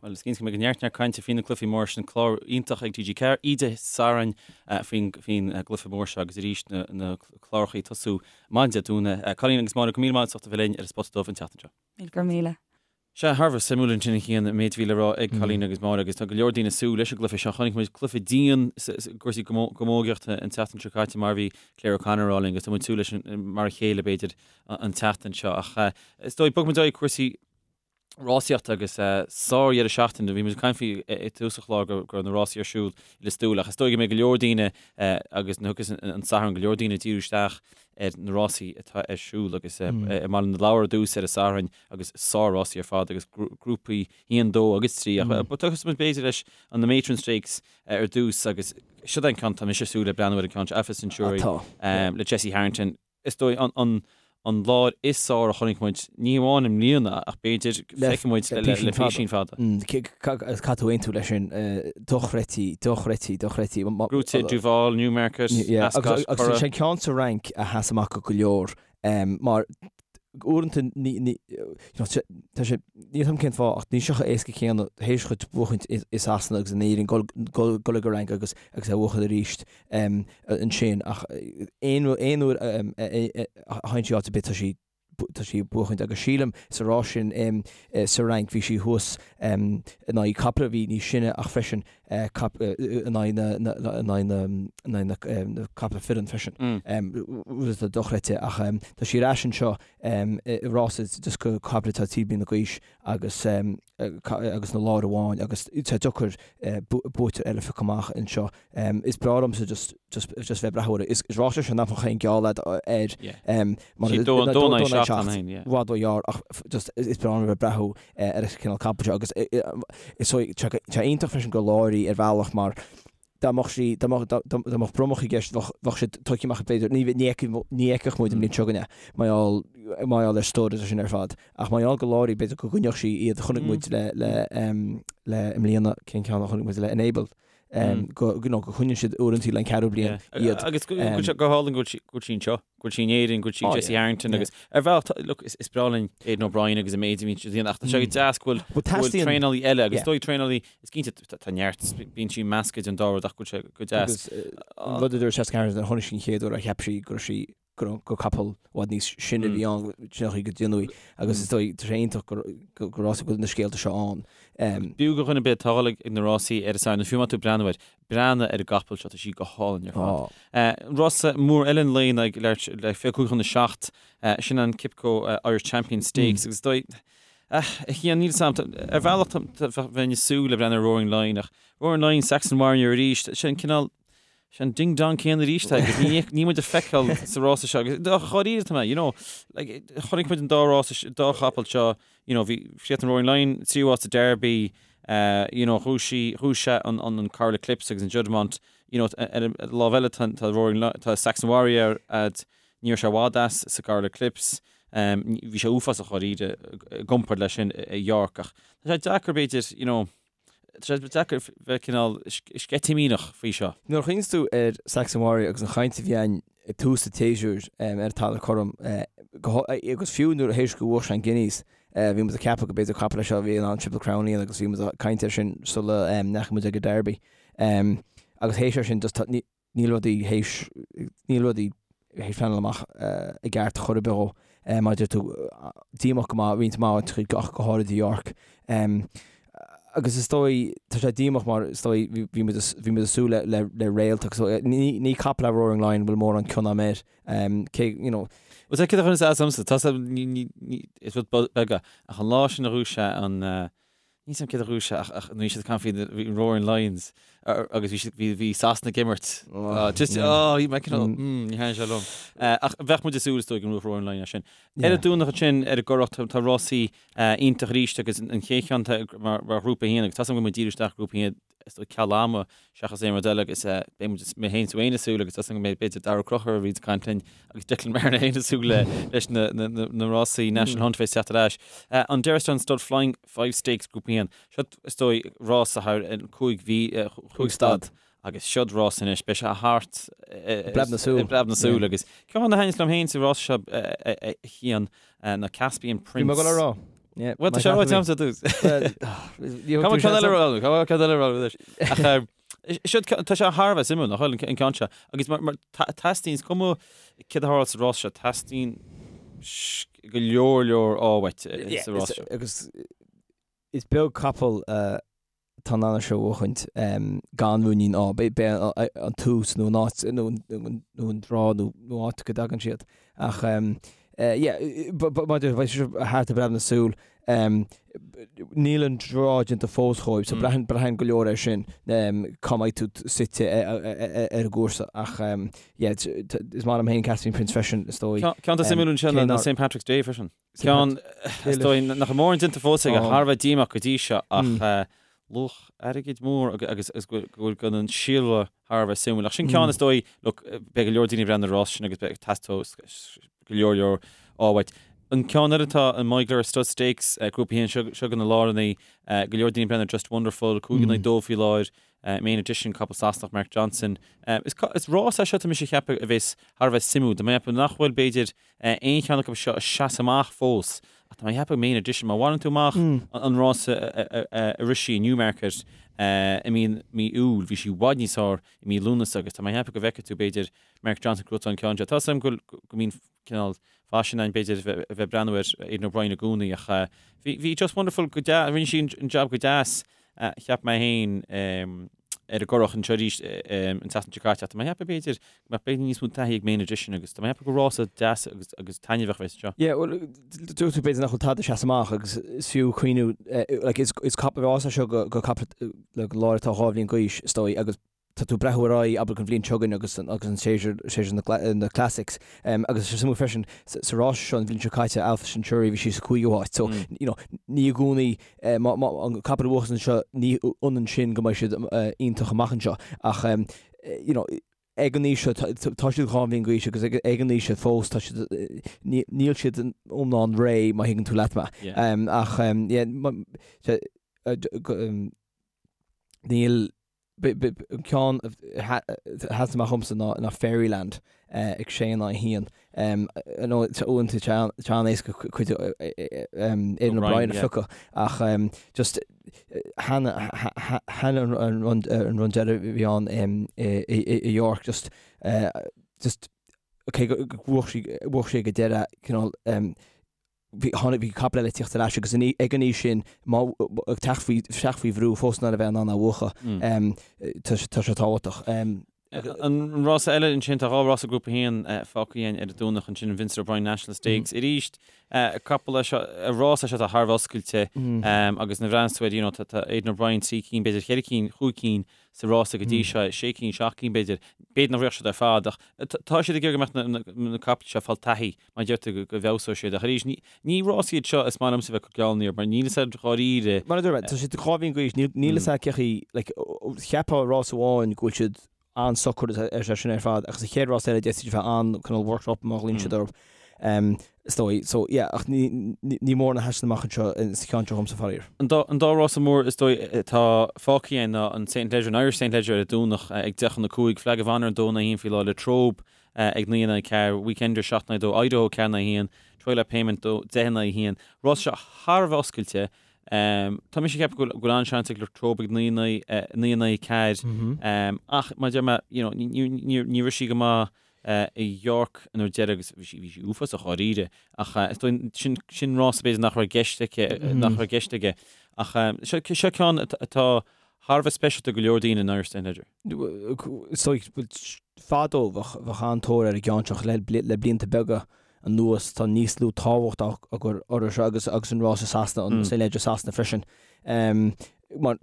[SPEAKER 1] Bhuel, is cinnte go mbeidh neart neart cainte faoi na cluichí mór sin, clár iontach ag TG4, oíche Sathairn faoin gcluiche mór seo agus arís na na cláracha ag tosú maidin Dé Domhnaigh. Colleen agus Máire, go míle maith as ucht a bheith linn ar an Spota Dubh an tseachtain seo.
[SPEAKER 5] Míle go raibh míle.
[SPEAKER 1] Sea, thar a bheith suimiúil ansin a Chian, an méid a bhí le rá ag Colleen agus Máire agus tá go leor daoine ag súil leis an gcluiche seo. Chonaic muid cluiche dian i gcúrsaí camógaíochta an tseachtain seo caite mar a bhí Claire O'Connor a rá linn agus tá muid ag súil leis mar a chéile b'fhéidir an tseachtain seo. Ach is dóigh, bogfaidh muid ar aghaidh cúrsaí rásaíochta agus sár-dheireadh seachtaine. Bhí muid ag caint faoi i dtús an chláir go raibh na rásaí ar siúl i Lios Tuathail ach is dóigh go mbeidh go leor daoine agus na thugas an Satharn go leor daoine ag díriú isteach ar na rásaí atá ar siúl agus i mBaile na Lobhar ar dtús ar an Satharn agus sár-rásaí ar fad agus grúpaí 1, 2 agus 3 ach tosóidh muid b'fhéidir leis an Matron Stakes ar dtús agus seo é an ceann tá mise ag súil le breathnú ar an ceann seo Alpha Centauri le Jessie Harrington. Is dóigh an an láir is fearr a chonaic muid, ní hamháin i mbliana ach b'fhéidir feicfidh muid le písín fada.
[SPEAKER 3] Caithfidh tú aontú leis sin, dochreidte, dochreidte, dochreidte.
[SPEAKER 1] Gnóite Duval, Newmarket,
[SPEAKER 3] Ascot, Curragh. Agus sé an ceann sa Fhrainc a sheas amach go leor mar uaireanta ní, tá sé, níl 'fhios a'm cén fáth ach níl sé chomh éasca céanna théis dhuit buachaint i Sasana agus in Éirinn dul ag an Fhrainc agus agus é a bhuachan arís ansin ach aon aon uair a théann sí áit ar bith tá sí tá sí ag buachaint agus sílim sa rás sin sa Fhrainc bhí sí thuas in aghaidh caiple a bhí níos sine ach freisin in aghaidh na caiple fireann freisin. Rud atá dochreidte ach tá sí ar ais anseo i rás just do chaiple atá 3 bliana d'aois agus agus na láir amháin agus tá deacair buaiteoir eile a phiocadh amach anseo. Is breá liomsa just just just bheith ag breathnú air. Is rás é seo nach mbeadh aon gheall agat air
[SPEAKER 1] mar i
[SPEAKER 3] bhfad róghearr ach just is breá liom bheith ag breathnú ar an cineál capaill seo agus is tá sé iontach freisin gur láir í ar bhealach mar dá mbeadh sí dá mbeadh dá mbeadh bromach i gceist bheadh bheadh siad tugtha amach b'fhéidir ní ní ní fheicfeadh muid an bhliain seo chugainn é mar gheall mar gheall ar stud agus sin ar fad ach mar gheall gur láir í b'fhéidir go gcoinneodh sí iad chonaic muid le le le i mbliana cén ceann a chonaic muid le Enable go you know go choinníonn siad uaireanta le an ceathrú bliain
[SPEAKER 1] iad. Agus go bhfuil sé go hálainn go bhfuil sí anseo, go bhfuil sí in Éirinn, go bhfuil sí ag Jessie Harrington agus ar bhealach, look, is breá linn Aidan O'Brien agus an méid a bhíonn siad a dhéanamh ach tá sé go deas go bhfuil go bhfuil traenálaí eile agus dóigh traenálaí, is cinnte tá neart, bíonn sí measctha den dá rud ach go bhfuil sé go deas.
[SPEAKER 3] Agus an rud a dúirt Jessica Harrington, chonaic sí an chéad uair a cheap sí go raibh sí gur capall i bhfad níos sine a bhí ann, sin an chaoi go déanaí agus is dóigh, tá sé iontach gur gur go bhfuil na scéalta seo ann.
[SPEAKER 1] B'fhiú do dhuine ar bith atá ag dul ag na rásaí ar an Satharn, nó fiú má tá tú ag breathnú air, breathnaigh ar an gcapall seo, tá sí go hálainn ar fad. Rása mór eile an lae ag le 25 chun a 7, sin an Qipco Irish Champion Stakes agus is dóigh, a Chian, níl 'fhios a'm, ar bhealach bheinn ag súil le breathnú ar Roaring Lion ach Roaring Lion, Saxon Warrior arís, sin cineál, Sé an ding dong céanna arís é agus ní níl muid ag feiceáil sa rása seo agus dháiríre tá mé, you know, like, chonaic muid an dá rása, dá chapall seo, you know, bhí chríochnaigh Roaring Lion tríú háit sa Derby, uh, you know, ghnóthaigh sí, ghnóthaigh sé an, an, an Coral Eclipse agus an Juddmonte, you know, ar an lámh eile tá, tá Roaring Lion, tá Saxon Warrior a'd, ní raibh sé i bhfad as sa gCoral Eclipse, um, bhí sé uafásach dháiríre i gcomparáid leis sin i York ach tá sé deacair b'fhéidir, you know, Tá sé deacair bheith cineál sceitimíneach faoi seo.
[SPEAKER 3] Nuair a chuimhníos tú ar Saxon Warrior agus an chaint a bhí ann ag tús an tséasúir ar an talamh cothrom, agus fiú nuair a théis go bhuaigh sé an Guineas, bhí muid ag ceapadh go b'fhéidir capall é seo a bhí in ann Triple Crown a dhéanamh agus bhí muid ag caint air sin sula ndeachaigh muid ag an Derby. Agus théis ar sin just tá, níl rudaí théis, níl rudaí théis pleanáil amach i gceart chor ar bith dhó. Mar a deir tú, díomách go maith, roinnt mhaith áiteachaí ach go háirid i York. Agus is dóigh, tá sé díomách mar is dóigh bhí muid bhí muid ag súil le le le réalt agus ní ní capall é Roaring Lion bhfuil mórán cion agam air. Cé, you know.
[SPEAKER 1] Bhuel, tá céard a chuireann as domsa, tá ní ní ní is rud beag é ach an lá sin a ghnóthaigh sé an Níl 's a'm céard a ghnóthaigh sé ach ach bhí siad ag caint faoi bhí Roaring Lions agus bhí siad bhí bhí Sasana ag imirt. Just oh bhí mé cineál mm ní thaitníonn sé liom. Ach bheadh muid ag súil is dóigh go mbuafadh Roaring Lion é sin. Ar an Domhnach ansin ar an gCurrach tá tá rásaí iontach arís agus an chéad cheann tá mar mar ghrúpa a haon agus tá 's a'm go bhfuil muid ag díriú isteach grúpa a haon is dóigh ceal ama seachas aon rud eile agus beidh muid, mé féin is tú féin ag súil agus tá 's agam go mbeidh b'fhéidir Daragh Ó Conchúir a bhíonns ag caint linn agus Declan Marner féin ag súil le leis na, na, na, na rásaí National Hunt bheith teacht ar ais. An Derrinstown Stud Flying Five Stakes Grúpa 1. Seo is dóigh rása thar 5 mhí, 5 stad agus seod rás anois, beidh sé thart
[SPEAKER 3] i bpreab na súl.
[SPEAKER 1] I bpreab na súl agus ceann a thaitníos liom féin sa rás seo a Chian ná Caspian Prince.
[SPEAKER 3] Bhí mé ag dul a rá.
[SPEAKER 1] Bhuel, tá sé ráite agamsa ar dtús. Cá bhfuil ceann eile rá? Cá bhfuil ceann eile rá anois? Ach seo tá sé thar a bheith suimiúil, nach bhfuil an ceann seo. Agus mar teastaíonn, is cuma céard a tharla sa rás seo, teastaíonn go leor leor ádh uait sa rás seo.
[SPEAKER 3] Agus is beag capall atá in ann é seo a bhuachaint gan ruainnín ádh. B'é an tús nó an áit nó an draw nó áit go dtagann siad. Ach yeah, maidir beidh sé thart i bpreab na súl. Níl an draw déanta fós dhóibh, so braitheann braitheann go leor air sin cá mbeidh tú suite ar an gcúrsa. Ach yeah, is maith liom féin Caspian Prince freisin, is dóigh.
[SPEAKER 1] Ceann atá suimiúil ansin ná St Patrick's Day freisin. Ceann, is dóigh, nach bhfuil mórán déanta fós aige, thar a bheith díomách go dtí seo ach luach airgid mór agus go bhfuil gan an síolra thar a bheith suimiúil. Ach sin ceann is dóigh, look, beidh go leor daoine ag breathnú ar an rás sin agus beidh teastóidh go leor leor ádh uait. An ceann eile atá an Moyglare Stud Stakes, grúpa 1, seo seo do na láranaí, go leor daoine ag breathnú ar Just Wonderful, 5 in aghaidh 2 faoi láthair, Main Edition, capall Sasanach Mark Johnston. Is rás é seo tá mise ag ceapadh a bheas thar a bheith suimiúil. Tá mé ag ceapadh nach bhfuil b'fhéidir aon cheann acu seo ag seasamh amach fós ach tá mé ag ceapadh Main Edition, má mhaireann tú amach an rás a rith sí i Newmarket i mí mí Iúil, bhí sí i bhfad níos fearr i mí Lúnasa agus tá mé ag ceapadh go bhfeicfidh tú b'fhéidir Mark Johnston ag gnóthachtáil an ceann seo. Tá 's agam go mbíonn cineál faisean ann b'fhéidir a bheith ag breathnú ar Aidan O'Brien i gcónaí ach bhí Just Wonderful go deas, rinne sí an jab go deas cheap mé féin ar an gCurrach anseo arís an tseachtain seo caite ach tá mé ag ceapadh b'fhéidir go mbeadh b'fhéidir níos mó taithí ag Main Edition agus tá mé ag ceapadh gur rása deas agus agus taitneamhach a bheas anseo.
[SPEAKER 3] Yeah, bhuel, dúirt tú b'fhéidir nach bhfuil tada ag seasamh amach agus is fiú cuimhniú like is is cap rás é seo go go capall le láir atá 2 bhliain d'aois is dóigh agus tá tú ag breathnú ar aghaidh, abair, an bhliain seo chugainn agus an agus an séasúr, séasúr na na Classics. Agus is suimiúil freisin, sa rás seo an bhliain seo caite, Alpha Centauri, bhí sí sa cúigiú háit. So, you know, ní i gcónaí, má, má, an capall a bhuachas anseo, ní ionann sin go mbeidh siad iontach amach anseo. Ach, you know, ag an aois seo, tá siad 2 bhliain d'aois agus ag an aois seo fós, tá siad, níl siad iomlán réidh, má thuigeann tú leat mé. Ach, yeah, níl, An ceann a sheas amach dhomsa ná Fairyland ag sé in aghaidh a haon. Uaireanta tá an-éasca cuid Aidan O'Brien a phiocadh ach just cheana an run deiridh a bhí ann i York just just cé go bhuaigh sí ag an deireadh cineál bhí, tháinig, bhí capall eile ag tíocht ar ais agus ag an aois sin, má, ag teacht faoi, teacht faoi bhrú fós in ann a bheith in ann a bhuachan, tá sé, tá sé tábhachtach.
[SPEAKER 1] An rása eile ansin, tá 2 rása Grúpa 1 fágtha againn ar an Domhnach ansin, an Vincent O'Brien National Stakes. Arís, capall é seo, rás é seo atá thar a bheith oscailte agus nuair a bhreathnaíonn tú air, you know, tá Aidan O'Brien 3 cinn, b'fhéidir 4 cinn, 5 cinn sa rása go dtí seo, 6 cinn, 7 cinn b'fhéidir. B'fhéidir nach rithfeadh siad ar fad ach tá siad ag iarraidh go mbeadh na capaill seo ag fáil taithí. Mar a deir tú, go bhfeabhsóidh siad. Ach arís, ní rás iad seo is maith liomsa bheith ag cur geallúna orthu, mar níl fhios a'd dháiríre.
[SPEAKER 3] Mar a dúirt mé, tá siad 2 bhliain d'aois, níl fhios a'd cé chaoi, like, cheapfá rás amháin go bhfuil siad an-socair ar sé sin ar fad, ach sa chéad rás eile d'fhéadfadh siad a bheith an-cineál worked up má ghlaonn siad orthu, is dóigh. So, yeah, ach ní, ní mórán a sheasann amach anseo sa cheann seo dhomsa, faraor.
[SPEAKER 1] An dá, an dá rása mór is dóigh atá fágtha againn ná an St Leger, an Irish St Leger ar an Domhnach ag 10 chun 5, Flag of Honour an 2 in aghaidh 1 faoi láthair, Latrobe ag 9 in aghaidh 4, Weekender 7 in aghaidh 2, Idaho 4 in aghaidh 1, Twilight Payment 10 in aghaidh 1. Rás seo thar a bheith oscailte. Tá mise ag ceapadh go bhfuil an-seans ag Latrobe ag 9 in aghaidh 4. Ach mar a deir mé, you know, ní raibh sí go maith i York an uair deiridh agus bhí sí bhí sí uafásach dháiríre. Ach is dóigh sin sin rás b'fhéidir nach raibh i gceist aici nach raibh i gceist aige. Ach seo seo ceann atá thar a bheith speisialta do go leor daoine in Irish St Leger.
[SPEAKER 3] Is dóigh fadó bheadh bheadh an-tóir ar an gceann seo le le blianta beaga anuas tá níos lú tábhacht á chur orthu seo agus agus an rás i Sasana an St Leger Sasana freisin. Mar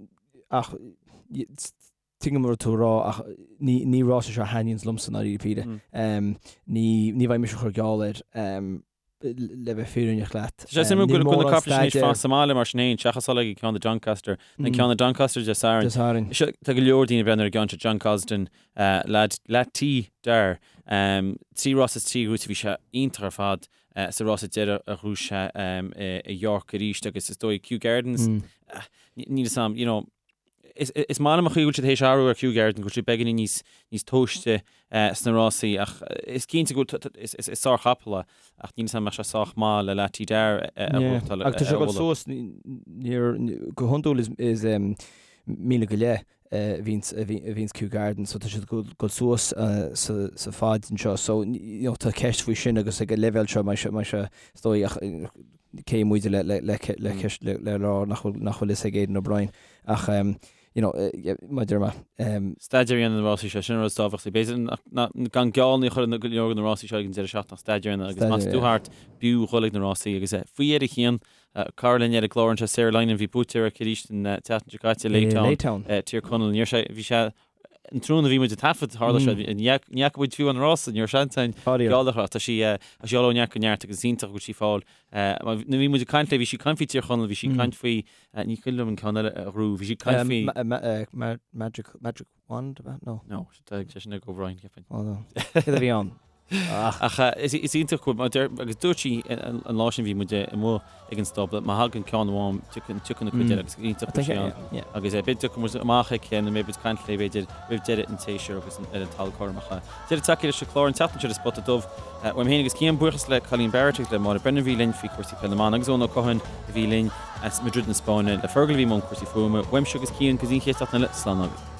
[SPEAKER 3] ach tuigim an rud tú a rá ach ní ní rás é seo a thaitníonns liomsa i ndáiríre píre. Ní ní bheidh mise ag cur geall air le bheith fírinneach leat.
[SPEAKER 1] Tá sé suimiúil go bhfuil na caiple sin anois fán sa mbaile mar sin féin seachas dul ag an ceann i Doncaster, an ceann i Doncaster Dé Sathairn. Dé
[SPEAKER 3] Sathairn.
[SPEAKER 1] Seo tá go leor daoine ag breathnú ar an gceann seo John Gosden leaid Latin Dar 3 rás is 3 ghnóthaithe bhí sé iontach ar fad sa rása deiridh a ghnóthaigh sé i York arís agus is dóigh Kew Gardens níl a fhios agam you know Is maith liom an chaoi go bhfuil siad théis athrú ar Kew Gardens, go bhfuil siad beagáinín níos níos tomhaiste sna rásaí ach is cinnte go bhfuil is is sárchapall é ach níl a fhios agam an mbeadh sé sách maith le Lah Ti Dar
[SPEAKER 3] a ghnóthachtáil a Agus tá sé ag dul suas níor go hiondúil is is míle go leith a bhíonns a bhíonns Kew Gardens so tá siad ag dul suas sa sa faid anseo so you know tá ceist faoi sin agus ag an leibhéal seo mbeidh sé mbeidh sé is dóigh ach cé muide le le le le ceist le le rá nach bhfuil nach bhfuil fhios ag Aidan O'Brien ach you know mar a deir mé.
[SPEAKER 1] Staidéar a dhéanamh ar na rásaí seo, sin an rud is tábhachtaí. B'fhéidir gan geall a chur ar go leor de na rásaí seo ag an deireadh seachtaine ach staidéar a dhéanamh agus más tú thart b'fhiú dhul ag na rásaí agus faoi dheireadh Cian, cara linn ar an gclár anseo Sarah Lynam bhí buaiteoir aici arís an tseachtain seo caite, Laytown, Tír Chonaill. Níor sé, bhí sé an tráthnóna a bhí muid ag taifead, tharla sé, ní fhaca muid fiú an rása, ní raibh seans againn geall a chur ach tá sí tá sí ag dul ó neart go neart agus is iontach go bhfuil sí ag fáil. Nuair a bhí muid ag caint léi, bhí sí ag caint faoi Tír Chonaill, bhí sí ag caint faoi, ní cuimhin liom an ceann eile a ghnóthaigh, bhí sí ag caint
[SPEAKER 3] faoi. Magic, Magic Wand, ab ea?
[SPEAKER 1] No. No, tá sé sin ag O'Brien,
[SPEAKER 3] cheapfainn. Oh no. Céard a bhí ann?
[SPEAKER 1] Ach is iontach go bhfuil, agus dúirt sí an lá sin bhí muid amuigh ag an stábla, má thagann ceann amháin tiocfaidh na cuid eile agus iontach go bhfuil sí ann. Agus beidh tiocfaidh muid amach aici nó beidh muid ag caint léi b'fhéidir roimh deireadh an tséasúir agus ar an talamh cothrom. Ach deireadh tagtha leis an chlár an tseachtain seo de Spota Dubh. Uaim féin agus Cian, buíochas le Colleen Barrett agus le Máire Brennan a bhí linn faoi chúrsaí peile na mban agus Eoin Ó Catháin a bhí linn as Madrid na Spáinne, le Fergal a bhí i mbun cúrsaí fuaime. Uaimse agus Cian go dtí an chéad seachtain eile, slán agaibh.